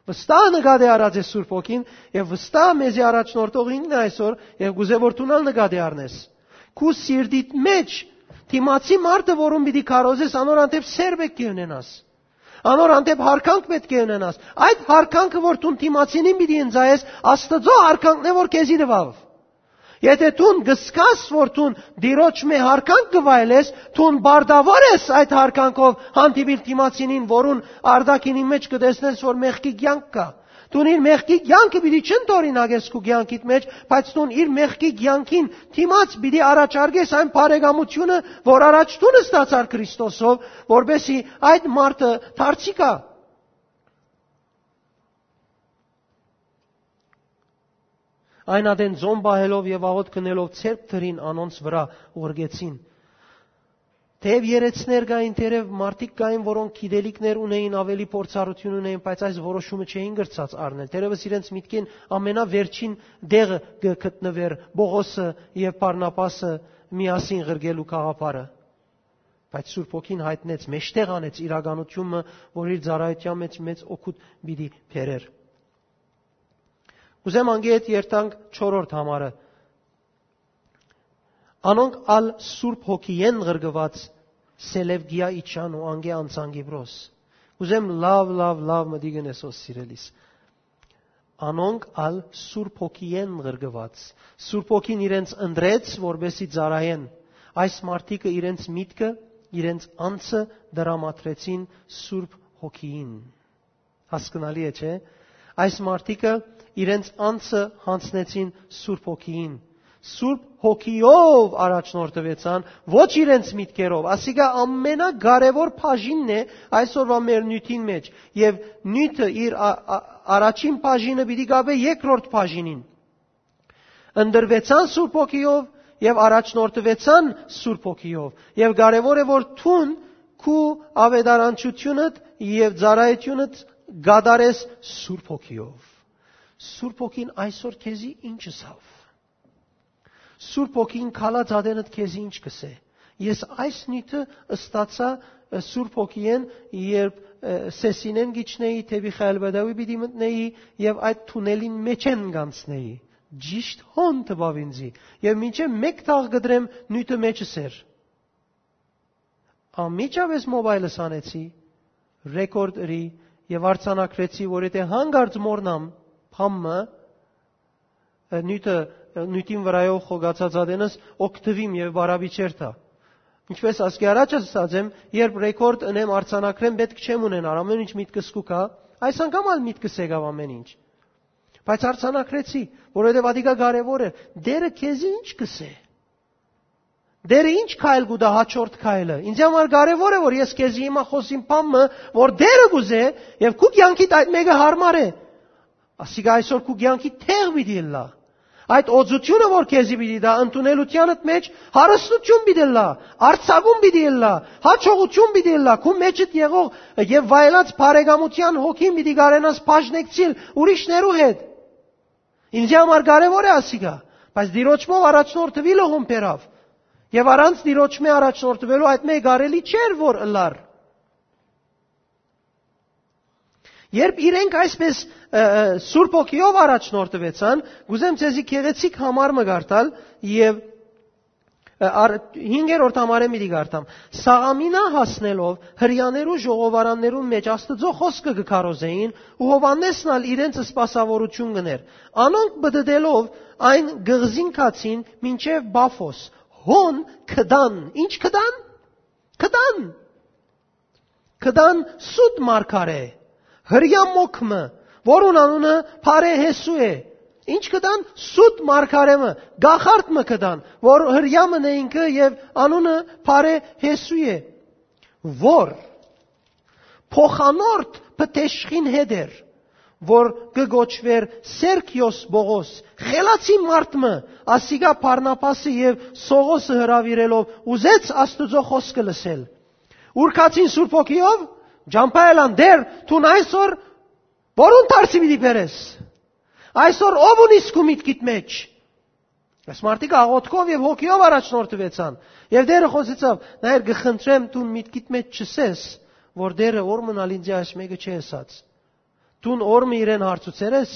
Վստահ նկատի առած է Սուրբ Հոգին եւ վստահ մեզի առաջնորդող ինքն է այսօր եւ կ'ուզէ, որ դուն ալ նկատի առնես։ Քու սիրտիդ մեջ դիմացի մարդը, որուն պիտի քարոզես, անոր հանդէպ սեր պէտք է ունենաս։ Անոր հանդէպ յարգանք պէտք է ունենաս։ Այդ յարգանքը, որ դուն դիմացինին պիտի ընծայես, Աստուծոյ յարգանքն է, որ քեզի տուաւ։ Եթէ դուն կ'զգաս, որ դուն Տիրոջ մէ յարգանք կը վայելես, դուն պարտաւոր ես այդ յարգանքով հանդիպիլ դիմացինին, որուն արտաքինին մէջ կը տեսնես, որ մեղքի կեանք կայ։ Դուն իր մեղքի կեանքը պիտի չընդօրինակես քու կեանքիդ մէջ, բայց դուն իր մեղքի կեանքին դիմաց պիտի առաջարկես այն բարեկամությունը, որ առաջ դուն ստացար Քրիստոսով, որպեսզի այդ մարդը դարձի գայ։ Այն ատեն ծոմ պահելով եւ աղօթք ընելով ձեռք դրին անոնց վրայ, ուղղեցին։ Թեեւ երեցներ կային, թերեւ մարդիկ կային, որոնք գիտելիքներ ունէին, ավելի փորձառութիւն ունէին, բայց այս որոշումը չէին կրցած առնել։ Թերեւս իրենց միտքին ամենավերջին տեղը կը գտնուէր Պողոսը եւ Բարնաբասը միասին ղրկելու գաղափարը։ Բայց Սուրբ Հոգին յայտնեց, մէջտեղ անեց իրականությունը, որ իր ծառայութեան մեջ մեծ օգուտ պիտի բերէր։ Ուզեմ անգէ հետ երթանք չորրորդ համարը։ Անոնք ալ Սուրբ Հոգիէն ղրկուած Սելևկիա իջան ու անգէ անցան Կիպրոս։ Ուզեմ լաւ, լաւ, լաւ մտիկ ընես, սիրելիս։ Անոնք ալ Սուրբ Հոգիէն ղրկուած։ Սուրբ Հոգին իրենց ընտրեց, որպեսզի ծառայեն։ Այս մարդիկը իրենց միտքը, իրենց անձը տրամադրեցին Սուրբ Հոգիին։ Հասկնալի է, չէ՞։ Այս մարդիկը իրենց անձը յանձնեցին Սուրբ Հոգիին։ Սուրբ Հոգիով առաջնորդուեցան, ոչ իրենց միտքերով։ Ասիկա ամենակարեւոր բաժինն է այսօրվա մեր նիւթին մէջ։ Եւ նիւթը իր ա-, ա-, առաջին բաժինը պիտի գաբէ երկրորդ բաժինին։ Ընտրուեցան Սուրբ Հոգիով եւ առաջնորդուեցան Սուրբ Հոգիով։ Եւ կարեւոր է, որ դուն քու աւետարանչութիւնդ եւ ծառայութիւնդ կատարես Սուրբ Հոգիով։ Սուրբ Հոգին այսօր քեզի ինչ ըսաւ։ Սուրբ Հոգին քալած ատենդ քեզի ինչ կ'ըսէ։ Ես այս նիւթը ստացայ, ը, Սուրբ Հոգիէն, երբ, ը, Սեսինէն գիչնեի, դէպի Խայալ Բեդաուի պիտի մտնեի եւ այդ թունելին մէջէն կանցնեի։ Ճիշդ հոն տուաւ ինձի, եւ մինչեւ մէկ թաղ կտրեմ նիւթը մեջս էր։ Անմիջապէս մոբայլս հանեցի, ռեկորդ ըրի եւ արձանագրեցի, որ եթէ հանկարծ մոռնամ բան մը, ը, նիւթը, ը, նիւթին վրայով խոկացած ատենս օգտուիմ եւ բարապիչեր տայ։ Ինչպես ասկի առաջ ասած եմ, երբ ռեկորդ ընեմ, արձանագրեմ, պէտք չեմ ունենար, ամէն ինչ միտքս կու գայ, այս անգամ ալ միտքս եկաւ ամէն ինչ։ Բայց արձանագրեցի, որովհետեւ ատիկա կարեւոր է։ Տէրը քեզի ինչ կ'ըսէ։ Տէրը ինչ քայլ կու տայ հաջորդ քայլը։ Ինձ համար կարեւոր է, որ ես քեզի հիմա խօսիմ բան մը, որ Տէրը կ'ուզէ, եւ քու կեանքիդ այդ մէկը յարմար է։ Ասիկա այսօր քու կեանքի տեղ պիտի ըլլայ։ Այդ օծութիւնը, որ քեզի պիտի տայ, ընդունելութեանդ մէջ հարստութիւն պիտի ըլլայ, արձակում պիտի ըլլայ, յաջողութիւն պիտի ըլլայ, քու մեջդ եղող եւ վայելած բարեկամութեան հոգին պիտի կարենաս բաժնեկցիլ ուրիշներու հետ։ Ինձի համար կարեւոր է ասիկա, բայց Տիրոջմով առաջնորդուիլը հոն բերաւ։ Եւ առանց Տիրոջմէ առաջնորդուելու այդ մէկ կարելի չէր, որ ըլլար։ Երբ իրենք այսպես, ը, ը, Սուրբ Հոգիով առաջնորդուեցան, կ'ուզեմ ձեզի գեղեցիկ համար մը կարդալ եւ Ա, առ-, հինգերորդ համարէն պիտի կարդամ։ Սաղամինա հասնելով, Հրեաներու ժողովարաններուն մէջ Աստուծոյ խօսքը կը քարոզէին ու Յովհաննէսն ալ իրենց սպասաւորութիւն կ'ընէր։ Անոնք պտտելով այն կղզին գացին մինչեւ Պաֆոս։ Հոն գտան։ Ի՞նչ գտան։ Գտան։ Գտան սուտ մարգարէ, Հրեայ մոգ մը, որուն անունը Բարեհեսու է։ Ի՞նչ գտան։ Սուտ մարգարէ մը, կախարդ մը գտան, որ Հրեայ մը է ինքը եւ անունը Բարեհեսու է, որ փոխանորդ Պտեշխին հետ էր, որ կը կոչուէր Սերգիոս Պողոս, խելացի մարդ մը, ասիկա Բարնաբասը եւ Սողոսը հրաւիրելով ուզեց Աստուծոյ խօսքը լսել։ Ուրկացին Սուրբ Հոգիով, ճամբայելան Տէր, դուն այսօր որուն դարձի պիտի բերես։ Այսօր ո՞վ ունիս քու միտքիդ մեջ։ Այս մարդիկ աղոթքով եւ հոգիով առաջնորդուեցան։ Եւ Տէրը խօսեցաւ. «Նայր, կը խնդրեմ, դուն միտքիդ մեջ չսես, որ Տէրը որ մնալ ինձի այս մէկը չի ըսած։ Դուն որ մը իրեն հարցուցեր ես,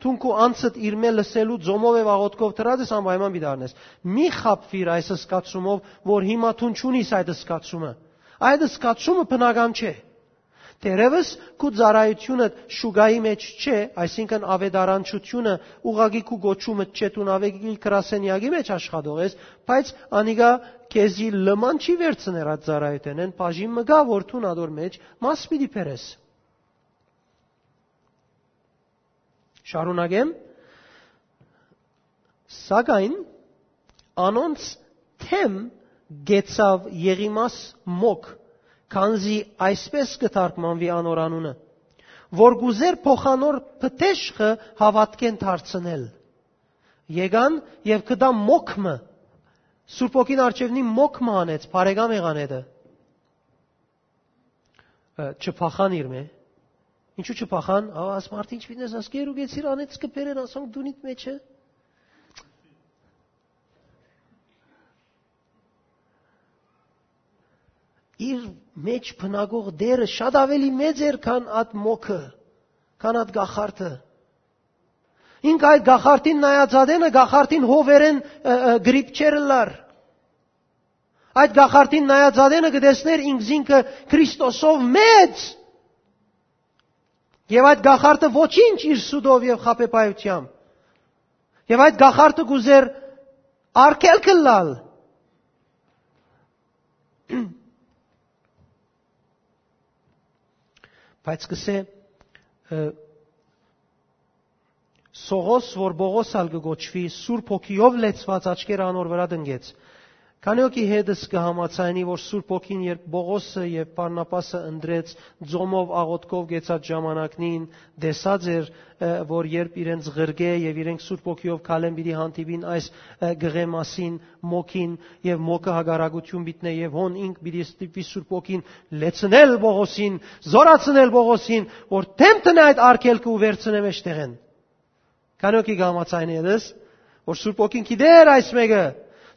դուն քու անձդ իրմէ լսելու ձոմով եւ աղոթքով դրած ես, անպայման պիտի առնես։ Մի խաբվիր այս զգացումով, որ հիմա դուն չունիս այդ զգացումը։ Այդ զգացումը բնական չէ։ Դերևս քու ծառայությունը շուկայի մեջ չէ, այսինքն աւետարանչությունը ուղղակի քու կոչումը չէ, դուն աւեկի գրասենյակի մեջ աշխատող ես, բայց անիկա քեզի լման չի վերցներ այդ ծառայութենէն, բաժին մը կայ, որ դուն ադոր մեջ մաս պիտի բերես»։ Շարունակեմ. «Սակայն անոնց դէմ գեցաւ Եղիմաս մոգ, քանզի այսպէս կը թարգմանուի անոր անունը, որ կ'ուզէր փոխանոր Պտեշխը հաւատքէն դարձնել։ Եկան եւ գտան մոգ մը»։ Սուրբ Հոգին արջեւնի մոգ մը անեց, բարեկամ եղան հետը։ Ը, չփախան իրմէ։ Ինչու չփախան։ Ա, աս մարդ ինչ պիտի ասի, «Գերու գեցիր, անեց կը բերեն, ասոնք դունիդ մեջը»։ Իր մեջ բնակող Տէրը շատ ավելի մեծ էր, քան այդ մոգը, քան այդ կախարդը։ Ինք այդ կախարդին նայած ատենը, կախարդին հովերեն, ը, ը, գրիպ չէր ըլլար։ Այդ կախարդին նայած ատենը կը տեսներ ինքզինքը Քրիստոսով մեծ։ Եւ այդ կախարդը ոչինչ իր սուտով եւ խաբեբայութեամբ։ Եւ այդ կախարդը կ'ուզեր արգելք ըլլալ։ Բայց կսե, ը, Սողոս, որ Պողոս ալ կը կոչուի, Սուրբ Հոգիով լեցուած, աչքերը անոր վրայ տնկեց։ Քանի հոգի հետս կը համաձայնի, որ Սուրբ Հոգին, երբ Պողոսը եւ Բարնաբասը ընտրեց, ձոմով աղոթքով գեցած ժամանակնին, տեսած էր, ը, որ երբ իրենց ղրկէ եւ իրենք Սուրբ Հոգիով քալեն պիտի հանդիպին այս, ը, գղէ մասին, մոգին, եւ մոգը հակառակութիւն պիտի նե, եւ հոն ինք պիտի ստիպի Սուրբ Հոգին լեցնել Պողոսին, զորացնել Պողոսին, որ դէմ տնէ այդ արգելքը ու վերցնէ մեջտեղէն։ Քանի հոգի կը համաձայնի այդպես, որ Սուրբ Հոգին գիտեր այս մէկը,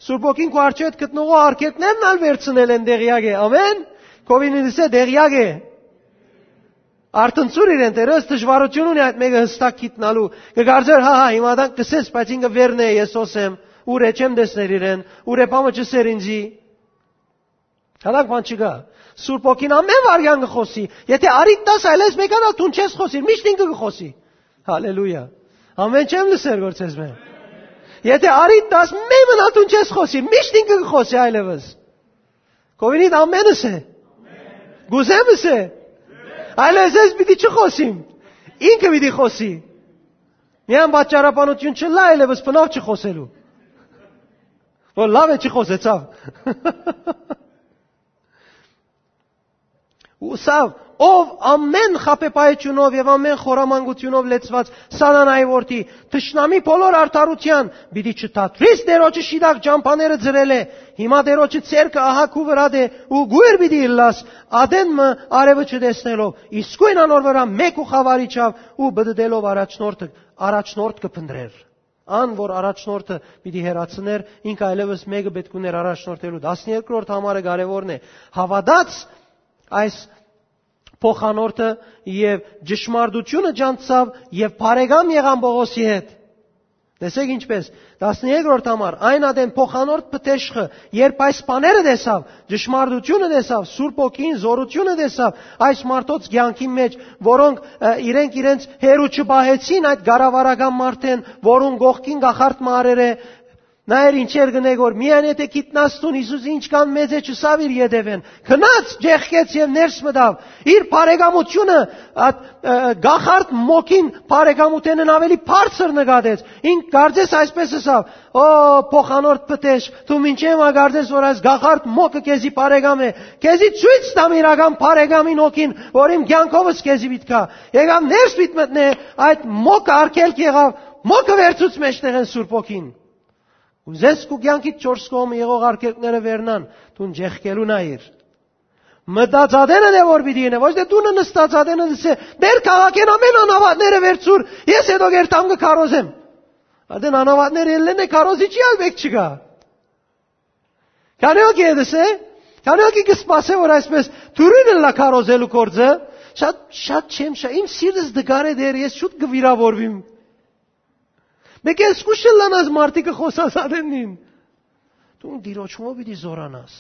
Սուրբ Հոգին քու արջեւդ գտնողը արգելքներն ալ վերցնել են, տեղյակ է, ամեն, կովինինիսը տեղյակ է։ Արթնցուր իրեն, Տէրը դժվարութիւն ունի այդ մէկը հստակ գիտնալու։ Կը կարծեր, հա, հա, հիմա դան կսես, բայց ինքը վերն է, ես հոս եմ, ուր է չեմ տեսներ իրեն, ուր է պամը չսեր ինձի։ Հատակ բան չկա։ Սուրբ Հոգին ամեն վարյան կը խօսի։ Եթե արիդ տաս, այլես մեկան ալ դուն չես խօսիր, միշտ ինքը կը խօսի։ Հալելույա։ Ամեն չեմ լսեր գործ ես մեն։ Եթե արիդ տաս, մեմն ալ դուն չես խօսիր, միշտ ինքը կը խօսի այլևս։ Կովինիդ ամենս է։ Գուզեմս է։ Այլևս ես պիտի չխոսիմ։ Ինքը պիտի խոսի։ Միան պատճառաբանություն չլա այլևս բնավ չխոսելու։ Որ լավ է չխոսեցավ։ Ուսաւ, ով ամեն խաբեբայությունով եւ ամեն խորամանկությունով լեցված սատանայի որդի, թշնամի բոլոր արդարության, պիտի չթատրիս Տերոջը շիտակ ճամբաները ձրելէ, հիմա Տերոջը ցերկը ահա քու վրադ է ու գույր պիտի ըլլաս, ադեն մը արևը չտեսնելով, իսկոյն անոր վրայ մէկ ու խաւարիչաւ ու բդդելով առաջնորդը, առաջնորդ կը փնտրեր։ Ան, որ առաջնորդը պիտի հեռացներ, ինքը այլևս մեկը պէտք ուներ առաջնորդելու։ Տասներկրորդ համարը կարեւորն է։ Հաւատաց այս փոխանորդը եւ ճշմարտությունը ճանչցաւ եւ բարեկամ եղան Պողոսի հետ։ Տեսեք ինչպէս, տասներկրորդ համար, այն ատեն փոխանորդ պտեշխը, երբ այս բաները տեսաւ, ճշմարտությունը տեսաւ, Սուրբ Հոգին զորությունը տեսաւ այս մարդոց կյանքին մեջ, որոնք, ը, իրենք իրենց հեռու չպահեցին այդ կառավարական մարդէն, որուն կողքին կախարդ մը առեր է, նայեր ինչեր կ'ընէ, որ միայն եթե գիտնաս դուն Յիսուս ինչքան մեծ է, չըսաւ իր ետեւէն, գնաց, ճեղքեց եւ ներս մտաւ, իր բարեկամությունը, այդ, ը, կախարդ մոգին բարեկամութենէն ավելի բարձր նկատեց։ Ինք կարծես այսպես ըսաւ. «Ո, փոխանորդ պտեշ, դու մինչեւ ա կարծես, որ այս կախարդ մոգը քեզի բարեկամ է։ Քեզի ցոյց տամ իրական բարեկամին հոգին, որ իմ կյանքովս քեզի պիտի գայ»։ Եկաւ ներս պիտի մտնէ, այդ մոգը արգելք եղաւ, մոգը վերցուց մեջտեղէն Սուրբ Հոգին։ Ուզես քու կյանքիդ չորս կողմը եղող արգելքները վերնան, դուն ճեղքելու նայիր։ Մտածածը դե որ պիտի ինե, ոչ դե դունը նստածածը դսե, դեր քաղաքեն ամեն անհավատները վերցուր, ես հետո գերտամ կը քարոզեմ։ Արդեն անհավատները ելլեն է, քարոզիչի ալ մէկ չկայ։ Քանի օքի է դսե, քանի օքի կը սպասե, որ այսպես դուրին ըլլա քարոզելու գործը, շատ, շատ չեմ, շատ, իմ սիրտս դգար է դեր, ես շուտ կը վիրավորվիմ։ Մեկը զգուշ ըլլանաս մարդիկը խօսածածին։ Դուն Տիրոջմով պիտի զորանաս։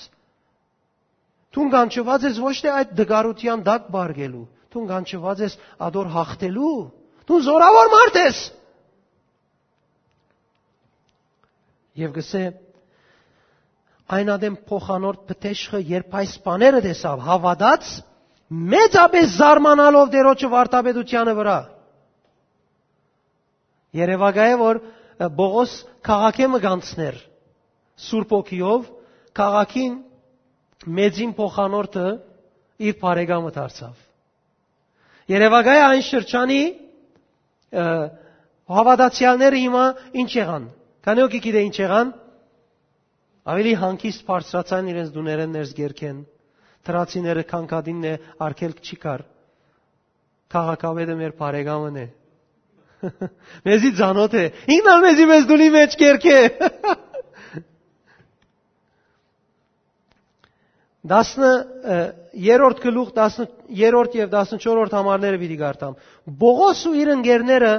Դուն կանչուած ես ոչ թե այդ դգարութեան տակ պառկելու, դուն կանչուած ես ատոր հաղթելու։ Դուն զորաւոր մարդ ես։ Եւ կսե, այն ատեն փոխանորդ պտեշխը, երբ այս բաները տեսաւ, հաւատաց, մեծապէս զարմանալով Տիրոջը վարդապետութեանը վրայ։ Երեւակայ է, որ, ը, Պողոս քաղաքը մը կանցներ Սուրբ Հոգիով, քաղաքին մեծին փոխանորդը իր բարեկամը դարձաւ։ Երեւակայ է այն շրջանի, ը, հաւատացեալները հիմա ինչ եղան։ Քանի օքի գիտե ինչ եղան։ Ավելի հանգիստ բարձրացան իրենց տուներէն ներս գերքեն։ Թրացիները քանքատինն է, արգելք չի կար։ Քաղաքապետը մեր բարեկամն է։ Մեզի ծանոթ է։ Ինքն ալ մեզի մեզ դունի մեջ կերկե։ Տասն, ը, երրորդ գլուխ, տասն, երրորդ եւ տասնչորսերորդ համարները պիտի կարդամ։ Պողոս ու իր ընկերները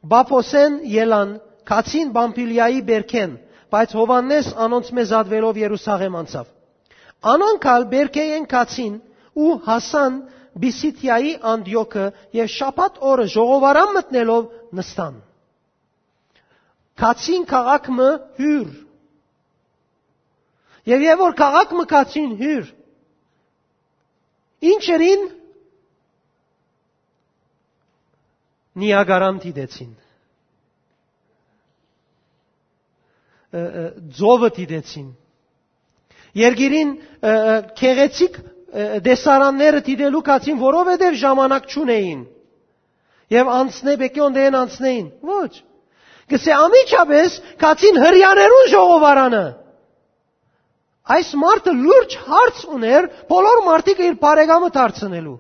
Պափոսէն ելան, գացին Պամփիլիայի բերքեն, բայց Յովհաննէս անոնցմէ զատուելով Երուսաղէմ անցաւ։ Անոնք ալ բերքէն գացին ու հասան Պիսիդիայի Անտիոքը եւ շաբաթ օրը ժողովարան մտնելով նստան։ Գացին քաղաք մը հիւր։ Եւ երբ որ քաղաք մը գացին հիւր, ինչ ըրին, Նիագարան դիտեցին։ Ը, ը, ծովը դիտեցին։ Երկիրին, ը, ը, գեղեցիկ, ը, տեսարանները դիտելու գացին, որովհետեւ ժամանակ չունէին։ Եւ անցնե, պեկի օնդեեն անցնեին։ Ոչ։ Կսե անմիջապէս գացին Հրեաներուն ժողովարանը։ Այս մարդը լուրջ հարց ուներ բոլոր մարդիկը իր բարեկամը դարձնելու։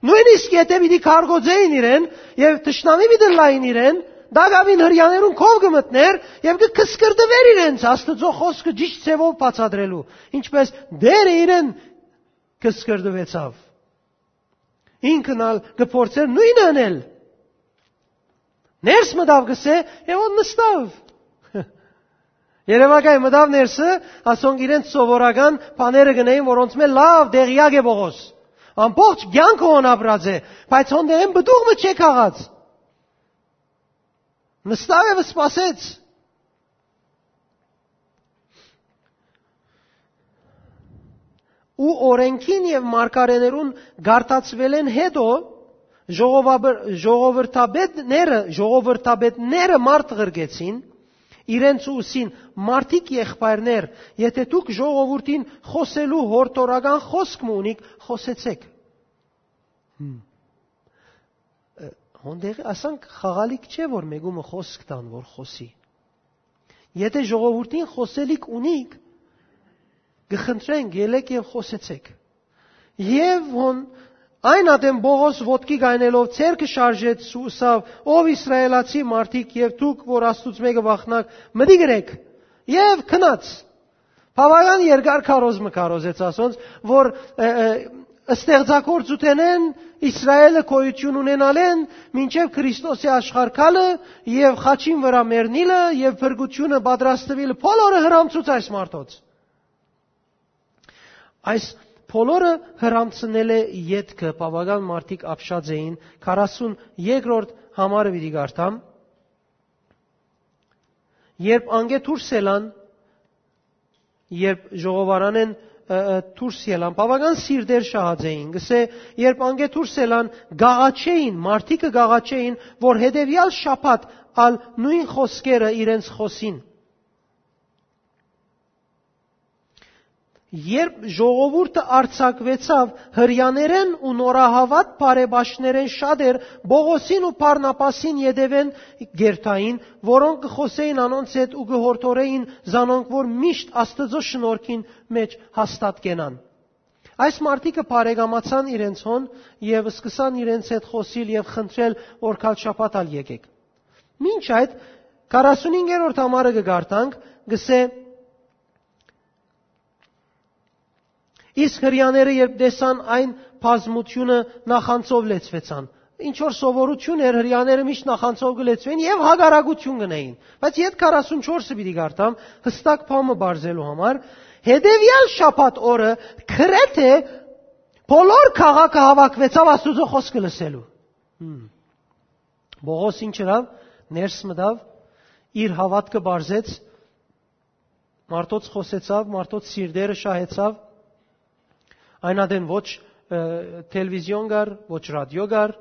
Նոյնիսկ եթե պիտի քարկոծեին իրեն եւ թշնամի պիտի լային իրեն, դակավին Հրեաներուն քով կը մտներ եւ կը կսկրտվեր իրենց Աստուծոյ խօսքը ճիշդ ձեւով բացատրելու, ինչպես Տերը իրեն կսկրտվեցաւ։ Ինքն ալ կը փորձեր նոյնը ընել։ Ներս մտաւ, կսե, եւ ո նստաւ։ Երեւակայ մտաւ ներսը, ասոնք իրենց սովորական բաները գնային, որոնց մէ լաւ դեղյակ է Պողոս։ Ամբողջ կյանքը հոն ապրած է, բայց հոն դեղեն պտուղ մը չէ քաղած։ Նստաւ եւ սպասեց։ Ու օրենքին եւ մարգարեներուն գարտացուելէն հետո ժողովաբր-, ժողովրդապետները, ժողովրդապետները մարդ ղրկեցին իրենց ու ըսին. «Մարդիկ եղբայրներ, եթե դուք ժողովուրդին խօսելու յորդորական խօսք մը ունիք, խօսեցէք»։ Հմ։ Ը, հոն դեղի ասանք խաղալիք չէ, որ մեկումը խօսք տան, որ խօսի։ Եթե ժողովուրդին խօսելիք ունիք, կը խնդրենք, ելեք եւ խօսեցեք։ Եւ հոն այն ատեն Պողոս ոտքի գայնելով ձեռքը շարժեց ու ըսաւ. «Ով Իսրայելացի մարդիկ եւ դուք, որ Աստուծմէ կը վախնաք, մտիկ ըրեք»։ Եւ գնաց։ Բավական երկար քարոզ մը քարոզեց ասոնց, որ, ը, ը, Ստեղծագործութենէն, Իսրայէլը գոյութիւն ունենալէն, մինչեւ Քրիստոսի աշխարհ գալը եւ խաչին վրայ մեռնիլը եւ փրկութիւնը պատրաստուիլը, բոլորը հրամցուց այս մարդոց։ Այս բոլորը հրամցնելէ ետքը բաւական մարդիկ ապշած էին, քառասուն երկրորդ համարը պիտի կարդամ, երբ անկէ դուրս ելան, երբ ժողովարանէն, ը, ը, դուրս ելան, բաւական սիրտեր շահած էին, կսէ, երբ անկէ դուրս ելան, գաղաչէին, մարդիկը գաղաչէին, որ հետեւեալ շաբաթ ալ նոյն խօսքերը իրենց խօսին։ Երբ ժողովուրդը արձակուեցաւ, Հրեաներէն ու նորահաւատ բարեպաշտներէն շատեր Պողոսին ու Բարնաբասին ետեւէն կ'երթային, որոնք կը խօսէին անոնց հետ ու կը յորդորէին զանոնք, որ միշտ Աստուծոյ շնորհքին մէջ հաստատ կենան։ Այս մարդիկը բարեկամացան իրենց հոն եւ սկսան իրենց հետ խօսիլ եւ խնդրել, որ գալ շաբաթ ալ եկեք։ Մինչ այդ, քառասունհինգերորդ համարը կը կարդանք, կսէ, իսկ Հրեաները, երբ տեսան այն բազմութիւնը, նախանձով լեցուեցան։ Ինչ որ սովորութիւն էր, Հրեաները միշտ նախանձով կը լեցուէին եւ հակառակութիւն կ'ընէին։ Բայց յետ քառասունչորսը պիտի կարդամ, յստակ բան մը բարձելու համար։ Հետեւեալ շաբաթ օրը գրեթէ բոլոր քաղաքը հաւաքուեցաւ Աստուծոյ խօսքը լսելու։ Հմ։ Պողոս ինչ ըրաւ, ներս մտաւ, իր հաւատքը բարձեց, մարդոց խօսեցաւ, մարդոց սիրտերը շահեցաւ, այն ատեն ոչ, ը, թելեվիզիոն կար, ոչ ռադիո կար,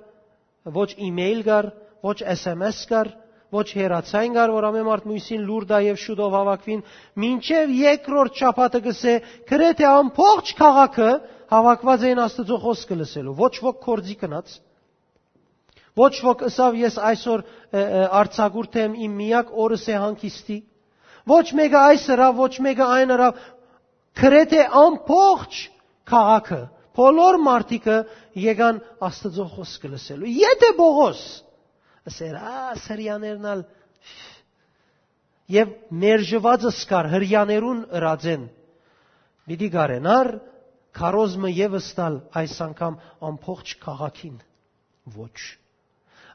ոչ email կար, ոչ S M S կար, ոչ հեռացան կար, որ ամեն մարդ միւսին լուր տայ եւ շուտով հաւաքուին, մինչեւ երկրորդ շաբաթը կսէ, գրեթէ ամբողջ քաղաքը հաւաքուած էին Աստուծոյ խօսքը լսելու, ոչ ոք գործի գնաց, ոչ ոք ըսաւ, «Ես այսօր, ը, ը, արձակուրդ եմ, իմ միակ օրս է հանգիստի»։ Ոչ մէկը այս ըրաւ, ոչ մէկը այն ըրաւ, գրեթէ ամբողջ քաղաքը, բոլոր մարդիկը եկան Աստուծոյ խօսքը լսելու։ Եթէ Պողոս ըսեր, «Ա, Հրեաներն ալ», եւ մերժուածս կար Հրեաներուն ըրածեն, պիտի կարենար քարոզ մը եւս տալ այս անգամ ամբողջ քաղաքին։ Ոչ։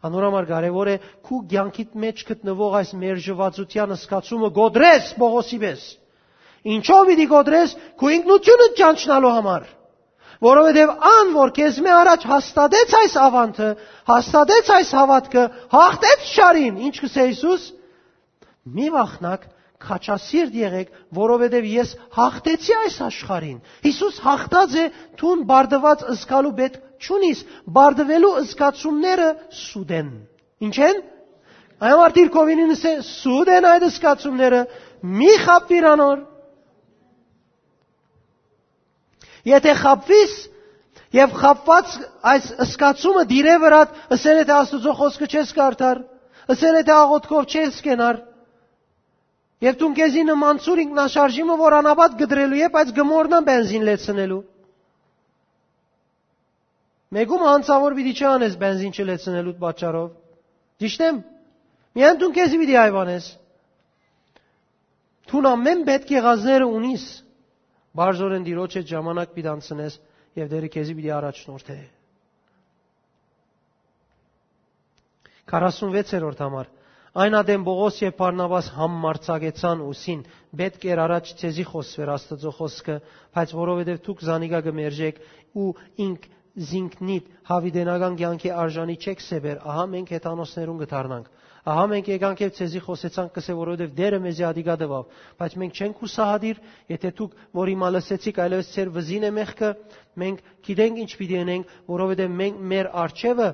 Անոր համար կարեւոր է քու կեանքիդ մէջ գտնուող այս մերժուածութեան զգացումը կոտրես Պողոսի պէս։ Ինչո՞վ պիտի կոտրես, քու ինքնութիւնդ ճանչնալու համար։ Որովհետեւ ան, որ քեզմէ առաջ հաստատեց այս աւանդը, հաստատեց այս հաւատքը, հաղթեց չարին, ինչ կսէ Յիսուս, «Մի վախնաք, քաջասիրտ եղէք, որովհետեւ ես հաղթեցի այս աշխարհին»։ Յիսուս հաղթած է դուն բարդուած զգալու պէտք չունիս, բարդուելու զգացումները սուտ են։ Ի՞նչ են։ Այն մարդիկ կովինին ըսե, սուտ են այդ զգացումները, մի խաբվիր անոր։ Եթէ խաբվիս եւ խաբված այս զգացումը դիրե վրադ, ըսել է, թե Աստուծոյ խօսքը չես կարդար, ըսել է, թե աղոթքով չես կենար, եւ դուն քեզի նմանցուր ինքնաշարժի մը, որ անապատ կտրելու է, բայց կմոռնան բենզին լեցնելու։ Մեկում անցաւոր պիտի չանես բենզին չլեցնելու պատճառով։ Ճիշտ եմ։ Միայն դուն քեզի պիտի այվանես։ Դուն ամեն պէտք եղածները ունիս, բարձորեն Տիրոջ հետ ժամանակ պիտի անցնես եւ Տերը քեզի պիտի առաջնորդէ։ Քառասունվեցերորդ համար։ Այն ատեն Պողոս եւ Բարնաբաս համարձակեցան ուսին. «Պէտք էր առաջ ձեզի խօսուեր Աստուծոյ խօսքը, բայց որովհետեւ դուք զանիկա կը մերժէք ու ինք զինքնիդ յաւիտենական կեանքի արժանի չեք սեպեր, ահա մենք հեթանոսներուն կը դառնանք։ Ահա մենք եկանք եւ ձեզի խօսեցանք, կսե, որովհետեւ Տերը մեզի ատիկա տուաւ, բայց մենք չենք յուսահատիր, եթէ դուք, որ հիմա լսեցիք, այլեւս ձեր վզին է մեղքը, մենք գիտենք ինչ պիտի ընենք, որովհետեւ մենք մեր արջեւը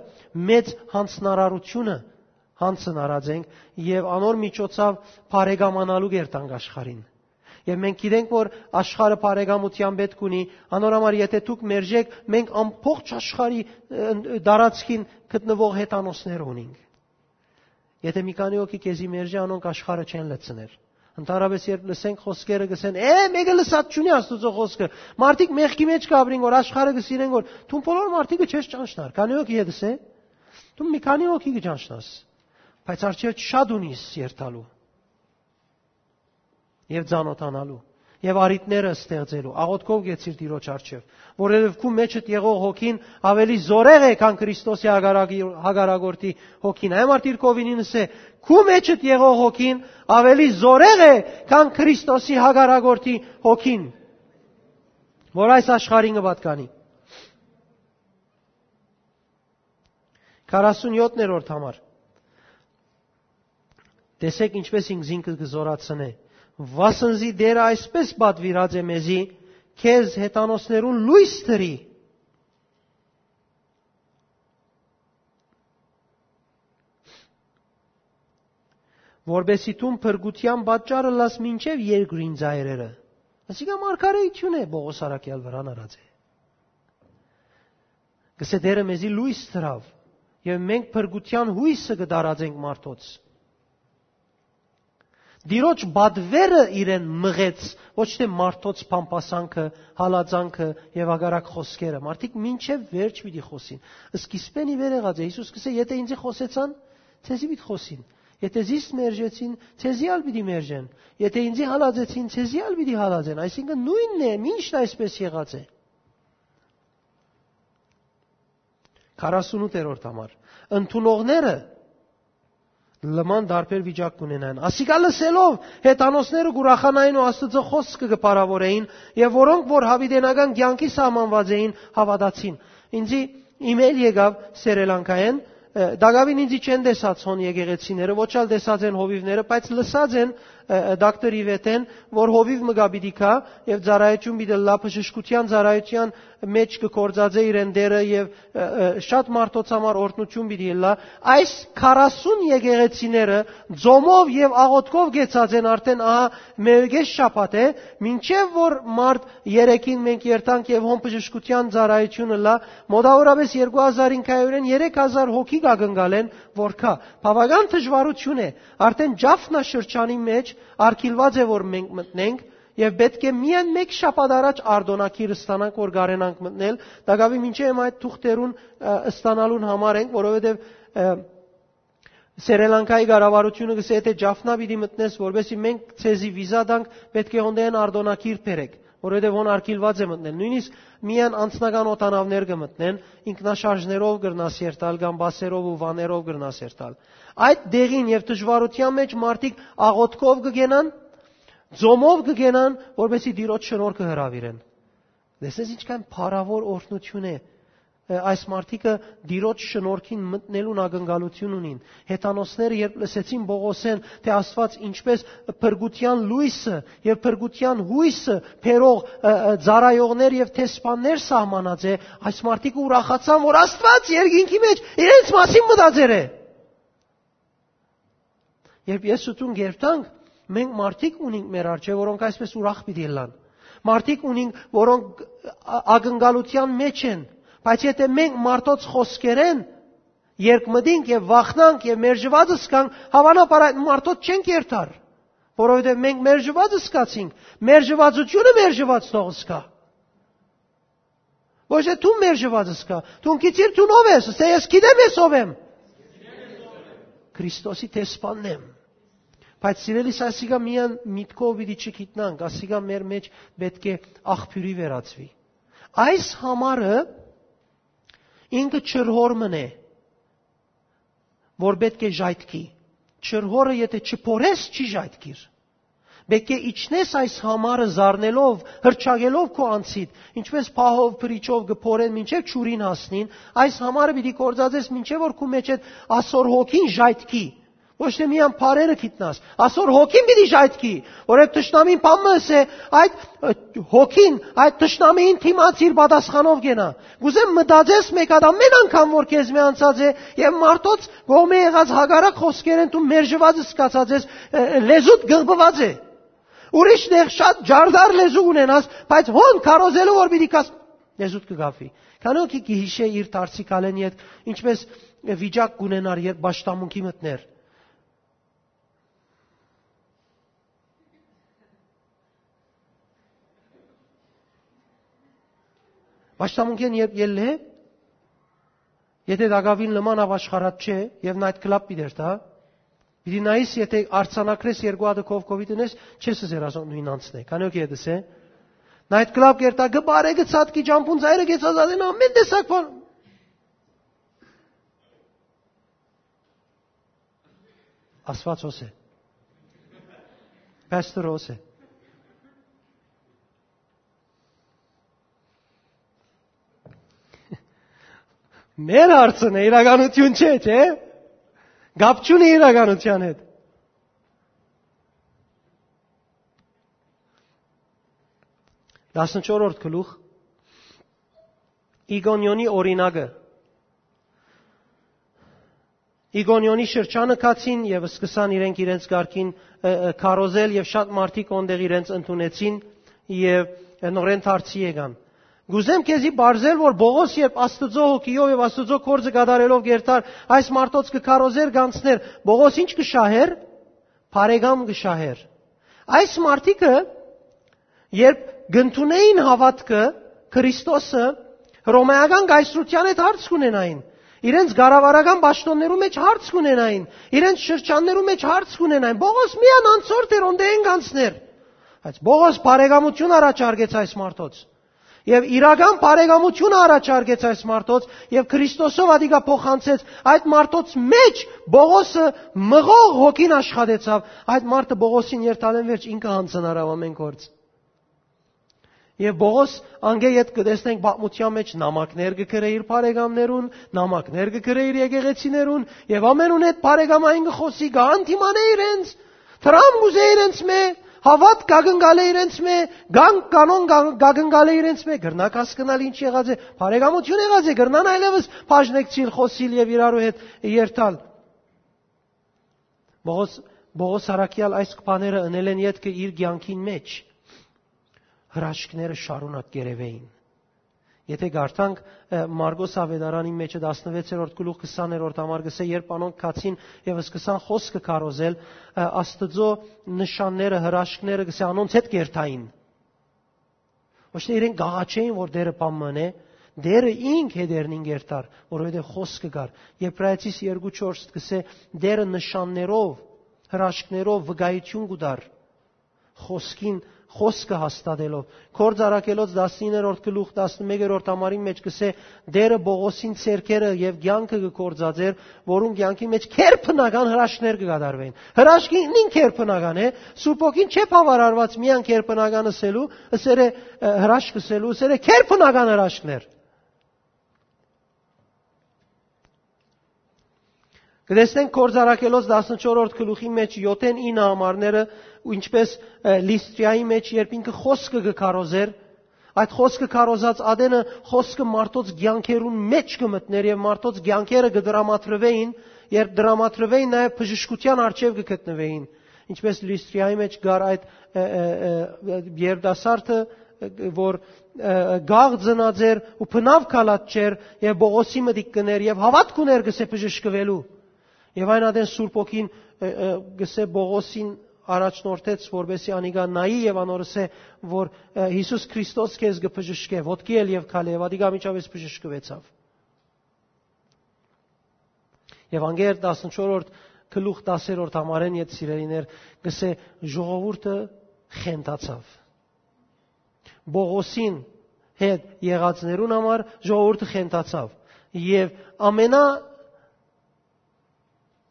մեծ յանձնարարությունը, յանձն առած ենք եւ անոր միջոցով բարեկամանալու կերտանք աշխարհին։ Եւ մենք գիտենք, որ աշխարհը բարեկամութեան պէտք ունի, անոր համար եթէ դուք մերժեք, մենք ամբողջ աշխարհի, ը, տարածքին գտնուող հեթանոսներ ունենք։ Եթէ մի քանի հոգի քեզի մերժէ, անոնք աշխարհը չեն լցներ։ Ընդհանրապես, երբ լսենք խօսքերը, կսեն, «Է, մեկը լսած չունի Աստուծոյ խօսքը»։ Մարդիկ մեղքի մէջ կապրին, որ աշխարհը կսիրեն, որ դուն բոլոր մարդիկը չես ճանչնար։ Քանի՞ հոգի հետ ես, է։ Դու մի քանի՞ հոգի կճանչնաս, բայց արջեր շատ ունիս երթալու եւ ծանոթանալու։ եւ առիթները ստեղծելու։ Աղօթքով գեցիր Տիրոջ առջեւ, որովհետեւ քու մեջդ եղող հոգին ավելի զորեղ է, քան Քրիստոսի հակառակի-, հակառակորդի հոգին։ Այն մարդիկ կովինին ըսե, քու մեջդ եղող հոգին ավելի զորեղ է, քան Քրիստոսի հակառակորդի հոգին, որ այս աշխարհին կը պատկանի։ Քառասունյոթերորդ համար։ Տեսեք ինչպես ինքզինքը կը զորացնէ։ Վասն զի Տերը այսպես պատուիրած է մեզի, քեզ հեթանոսներուն լոյս դրի, որպեսզի դուն փրկութեան պատճառ ըլլաս մինչեւ երկրին ծայրերը։ Ասիկա մարգարեութիւն է, Պողոս առաքեալ վրան առած է։ Կսե Տերը մեզի լոյս դրաւ, եւ մենք փրկութեան յոյսը կը տարածենք մարդոց։ Տիրոջ պատվերը իրեն մղեց, ոչ թե մարդոց փամփասանքը, հալածանքը եւ հակառակ խօսքերը։ Մարդիկ մինչեւ վերջ պիտի խօսին։ Սկիզբէն ի վեր եղած է։ Յիսուս կսե, «Եթէ ինձի խօսեցան, ձեզի պիտի խօսին։ Եթէ զիս մերժեցին, ձեզի ալ պիտի մերժեն։ Եթէ ինձի հալածեցին, ձեզի ալ պիտի հալածեն»։ Այսինքն նոյնն է, միշտ այսպես եղած է։ Քառասունութերորդ համար։ Ընդունողները լման տարբեր վիճակ կունենան։ Ասիկա լսելով, հեթանոսները կ'ուրախանային ու Աստուծոյ խօսքը կը փառաւորէին, եւ որոնք որ յաւիտենական կեանքի սահմանուած էին, հաւատացին։ Ինձի email եկաւ Սերելանկայէն, ը, տակաւին ինձի չեն տեսած հոն եկեղեցիները, ոչ ալ տեսած են հովիւները, բայց լսած են, ը, ը, դոկտոր Իվետէն, որ հովիւ մը կայ պիտի գայ եւ ծառայութիւն պիտի ըլլայ, բժշկութեան ծառայութեան մէջ կը գործածէ իրեն Տերը եւ, ը, ը, շատ մարդոց համար օրհնութիւն պիտի ըլլայ։ Այս քառասուն եկեղեցիները ձոմով եւ աղօթքով կեցած են արդէն, ահա, մէկէս շաբաթ է, մինչեւ որ մարտ երեքին մենք երթանք եւ հոն բժշկութեան ծառայութիւն ըլլայ, մոտավորապես երկու հազար ինքայուրէն երեք հազար հոգի կ'ակնկալեն, որ գայ։ Բաւական դժուարութիւն է, արդէն Ջաֆնա շրջանի մէջ արգիլուած է, որ մենք մտնենք, եւ պէտք է միայն մէկ շաբաթ առաջ արտօնագիր ստանանք, որ կարենանք մտնել, տակաւի մինչեւ հիմա այդ թուղթերուն, ը, ստանալուն համար ենք, որովհետեւ, ը, Սերելանկայի կառավարութիւնը կսե, «Եթէ Ջաֆնա պիտի մտնես, որպեսզի մենք ձեզի վիզա տանք, պէտք է հոնդեան արտօնագիր բերեք, որովհետեւ հոն արգիլուած է մտնել»։ Նոյնիսկ միայն անձնական օդանաւներ կը մտնեն, ինքնաշարժներով կրնաս երթալ կամ բասերով ու վաներով կրնաս երթալ։ Այդ դեղին եւ դժուարութեան մէջ մարդիկ աղօթքով կը գենան, ձոմով կը գենան, որպեսզի Տիրոջ շնորհքը հրաւիրեն։ Տեսնես ինչքան փառաւոր օրհնութիւն է, ը, այս մարդիկը Տիրոջ շնորհքին մտնելուն ակնկալութիւն ունին։ Հեթանոսները երբ լսեցին Պողոսէն, թէ Աստուած ինչպես փրկութեան լոյսը եւ փրկութեան յոյսը բերող, ը, ը, ծառայողներ եւ դեսպաններ սահմանած է, այս մարդիկը ուրախացան, որ Աստուած երկինքի մէջ իրենց մասին մտածեր է։ Երբ ես ու դուն կերտանք, մենք մարդիկ ունենք մեր առջեւ, որոնք այսպես ուրախ պիտի ըլլան։ Մարդիկ ունենք, որոնք ա-, ակնկալութեան մեջ են, բայց եթե մենք մարդոց խօսքերէն երկմտենք եւ վախնանք եւ մերժուած զգանք, հաւանաբար այդ մարդոց չենք երթար, որովհետեւ մենք մերժուած զգացինք, մերժուածությունը մերժուած թող զգայ։ Ոչ թե դուն մերժուած զգայ, դուն գիտիր դուն ով ես, ասե, «Ես գիտեմ ես ով եմ»։ Քրիստոսի դեսպանն եմ։ Բայց, սիրելիս, ասիկա միայն միտքով պիտի չգիտնանք, ասիկա մեր մեջ պէտք է աղբիւրի վերածուի։ Այս համարը ինքը ջրհոր մըն է, որ պէտք է ժայթքի։ Ջրհորը եթէ չփորես, չի ժայթքիր։ Պէտք է իջնես այս համարը զարնելով, հրճագելով քու անձիդ, ինչպես պահով, բրիչով կը փորեն մինչեւ ջուրին հասնին, այս համարը պիտի գործածես մինչեւ որ քու մեջ այդ ասոր հոգին ժայթքի։ Ոչ թե միայն փարերը գիտնաս, ասոր հոգին պիտի ժայթքի, որ այդ թշնամին բան մը ըսե, այդ, ը, հոգին, այդ թշնամիին դիմաց իր պատասխանով կենայ։ Կ'ուզեմ մտածես մէկ հատ ամեն անգամ, որ քեզմէ անցած է, եւ մարդոց կողմէ եղած հակառակ խօսքերէն դու մերժուած զգացած ես, ը, ը, լեզուդ գղբուած է։ Ուրիշ տեղ շատ ջարդար լեզու ունենաս, բայց հոն քարոզելու որ պիտի կաս, լեզուդ կը գաֆի։ Քանի՞ օքի կը յիշէ իր դարձի քալեն յետ, ինչպես վիճակ կունենար, երբ պաշտամունքի մտներ։ Պաշտամունքեն երբ ելլե, եթե դակավին լման ավ աշխարհատ չէ, եւ night club պիտի երթա, Պիտի նայես, եթե արձանագրես երկու հատը քով COVID-ը նես, չես ըսեր ասոնք նոյն անցնէ։ Քանի օք ետս է։ Նայ այդ կլապ կերտա, կը բարե, կը ցատկի, ճամբուն ծայրը կեցած ատեն ամեն տեսակ բան։ Աստված հոս է։ Պաստոր հոս է։ Մեր հարցն է, իրականություն չէ, չէ՞։ Գապ չունի իրականության հետ։ Տասնչորրորդ գլուխ, Իգոնիոնի օրինակը։ Իգոնիոնի շրջանը գացին եւ սկսան իրենք իրենց կարգին, ը, ը, քարոզել, եւ շատ մարդիկ օնտեղ իրենց ընդունեցին եւ, ը, նորեն դարձի եկան։ Կուզեմ քեզի բարձել, որ Պողոս, երբ Աստուծոյ հոգիով եւ Աստուծոյ գործը կատարելով գերտար այս մարդոց կը քարոզեր, գանցներ, Պողոս ինչ կը շահեր, բարեկամ կը շահեր։ Այս մարդիկը, երբ կ'ընդունէին հաւատքը Քրիստոսը, հռոմէական կայսրութեան հետ հարց կ'ունենային, իրենց կառավարական պաշտոններու մեջ հարց կ'ունենային, իրենց շրջաններու մեջ հարց կ'ունենային։ Պողոս միան անցորդ էր, օնտեղէն գանցներ։ Բայց Պողոս բարեկամություն առաջարկեց այս մարդոց։ Եւ իրական բարեկամությունը առաջարկեց այս մարդոց, եւ Քրիստոսով ատիկա փոխանցեց։ Այդ մարդոց մեջ Պողոսը մղող հոգին աշխատեցաւ։ Այդ մարդը Պողոսին երթալէն վերջ ինքը յանձնարաւ ամեն գործ։ Եւ Պողոս անգէ յետ կը տեսնենք պատմութեան մեջ նամակներ կը գրէ իր բարեկամներուն, նամակներ կը գրէ իր եկեղեցիներուն, եւ ամենուն հետ բարեկամային կը խօսի, կը հանդիմանէ իրենց, դրամ կ'ուզէ իրենց մէ, հաւատ կ'ակնկալէ իրենց մէ, կան-, կանոն կա-, կ'ակնկալէ իրենց մէ, կրնաք հասկնալ ինչ եղած է, բարեկամություն եղած է, կրնան այլեւս բաժնեկցիլ, խօսիլ եւ իրարու հետ երթալ։ Պողոս, Պողոս առաքեալ այս բաները ընելէն ետքը իր կեանքին մեջ հրաշքները շարունակ կ'երեւէին։ Եթե կարդանք, ը, Մարկոս Աւետարանին մեջը տասնվեցերորդ գլուխ քսաներորդ համար կսէ, երբ անոնք գացին եւ սկսան խօսքը քարոզել, ը, Աստուծոյ նշանները, հրաշքները կսէ անոնց հետ կերթային։ Ոչ թե իրենք կ'աղաչէին, որ Տէրը բան մնէ, Տէրը ինք հետերնին կերթար, որովհետեւ խօսքը կար։ Եբրայեցիս երկու չորս կսէ, Տէրը նշաններով, հրաշքներով վկայություն կու տար, խօսքին, խօսքը հաստատելով։ Գործ առաքելոց տասիններորդ գլուխ տասնմեկերորդ համարին մեջ կսէ, Տէրը Պողոսին ձեռքերը եւ կեանքը կը գործածէր, որուն կեանքի մեջ քերբնական հրաշքներ կը կատարվեն։ Հրաշքը ինքնին քերբնական է, Սուրբ Հոգին չէ բաւարարուած միայն քերբնական ըսելու, ըսեր է, ը, հրաշք ըսելու, ըսեր է քերբնական հրաշքներ։ Կտեսնենք Գործ Առաքելոց տասնչորրորդ գլուխի մեջ յոթէն ինը համարները, ու ինչպես, ը, Լիստրիայի մեջ, երբ ինքը խօսքը կը քարոզէր, այդ խօսքը քարոզած ատենը խօսքը մարդոց կեանքերուն մեջ կը մտնէր եւ մարդոց կեանքերը կը դրամատրվէին, երբ դրամատրվէին, նաեւ բժշկութեան առջեւ կը գտնուէին, ինչպես Լիստրիայի մեջ կար այդ, ը, ը, ը, երիտասարդը, ը, որ, ը, գաղ ծնած էր ու բնաւ քալած չէր, եւ Պողոսի մտիկ կներ եւ հաւատք ուներ կսէ բժշկուելու։ Եւ այն ատեն Սուրբ Հոգին, ը, ը, կսէ Պողոսին առաջնորդեց, որպեսզի անիկա նայի եւ անոր ըսէ, որ, ը, Յիսուս Քրիստոս քեզ կը բժշկէ, ոտքի ել եւ քալէ, եւ ատիկա անմիջապէս բժշկուեցաւ։ Եվանգել տասնչորրորդ գլուխ տասերորդ համարէն յետ, սիրելիներ, կսէ, ժողովուրդը խենթացաւ։ Պողոսին հետ եղածներուն համար ժողովուրդը խենթացաւ։ Եւ ամենա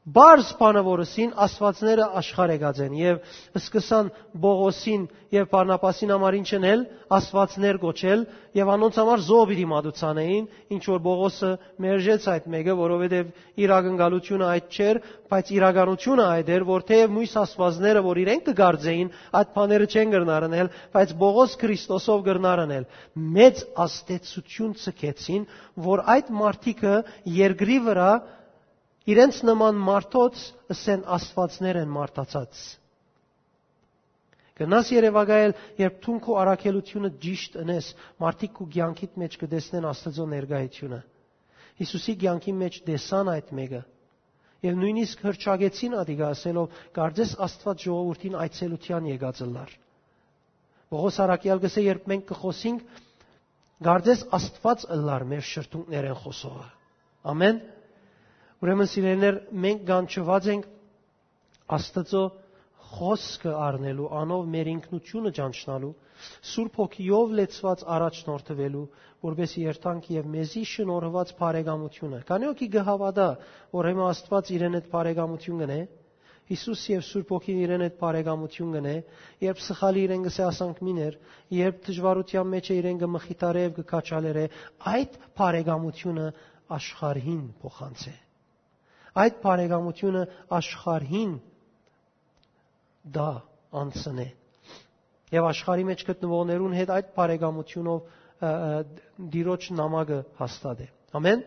պարզ բանը, որ ըսին, աստվածները աշխարհ եկած են, եւ սկսան Պողոսին եւ Բարնաբասին համար ինչ ընել, աստվածներ կոչել, եւ անոնց համար զոհ պիտի մատուցանէին, ինչ որ Պողոսը մերժեց այդ մէկը, որովհետեւ իր ակնկալությունը այդ չէր, բայց իրականությունը այդ էր, որ թեեւ մոյս աստվածները, որ իրենք կը կարծէին, այդ բաները չեն կրնար ընել, բայց Պողոս Քրիստոսով կրնար ընել։ Մեծ ազդեցություն ցկեցին, որ այդ մարդիկը երկրի վրայ իրենց նման մարդոց ըսեն, աստվածներ են մարդացած։ Գնաս երևակայել, երբ դուն քու առաքելությունը ճիշտ ընես, մարդիկ քու կեանքիդ մեջ կտեսնեն Աստուծոյ ներկայությունը։ Յիսուսի կեանքի մեջ տեսան այդ մէկը, եւ նոյնիսկ հրճակեցին ատիկա, ասելով, «Կարծես Աստուած ժողովուրդին այցելութեան եկած ըլլար»։ Պողոս առաքեալ կսէ, երբ մենք կը խօսինք, «Կարծես Աստուած ըլլար մեր շրթունքներէն խօսողը»։ Ամեն։ Ուրեմն, սիրելիներ, մենք կանչուած ենք Աստուծոյ խօսքը առնելու, անով մեր ինքնութիւնը ճանչնալու, Սուրբ Հոգիով լեցուած առաջնորդուելու, որպէս երթանք եւ մեզի շնորհուած բարեկամութիւնը։ Քանի՞ հոգի կը հաւատայ, որ հիմա Աստուած իրեն հետ բարեկամութիւն կ'ընէ, Յիսուս եւ Սուրբ Հոգին իրեն հետ բարեկամութիւն կ'ընէ, երբ սխալի իրեն կ'ըսէ, ասանք, մին էր, երբ դժուարութեան մէջ է, իրեն կը մխիթարէ եւ կը քաջալերէ, այդ բարեկամութիւնը աշխարհին փոխանցէ։ Այդ բարեկամութիւնը աշխարհին տայ, անցնէ։ Եւ աշխարհի մէջ գտնուողներուն հետ այդ բարեկամութիւնով, ը, ը, Տիրոջ նամակը հաստատէ։ Ամեն։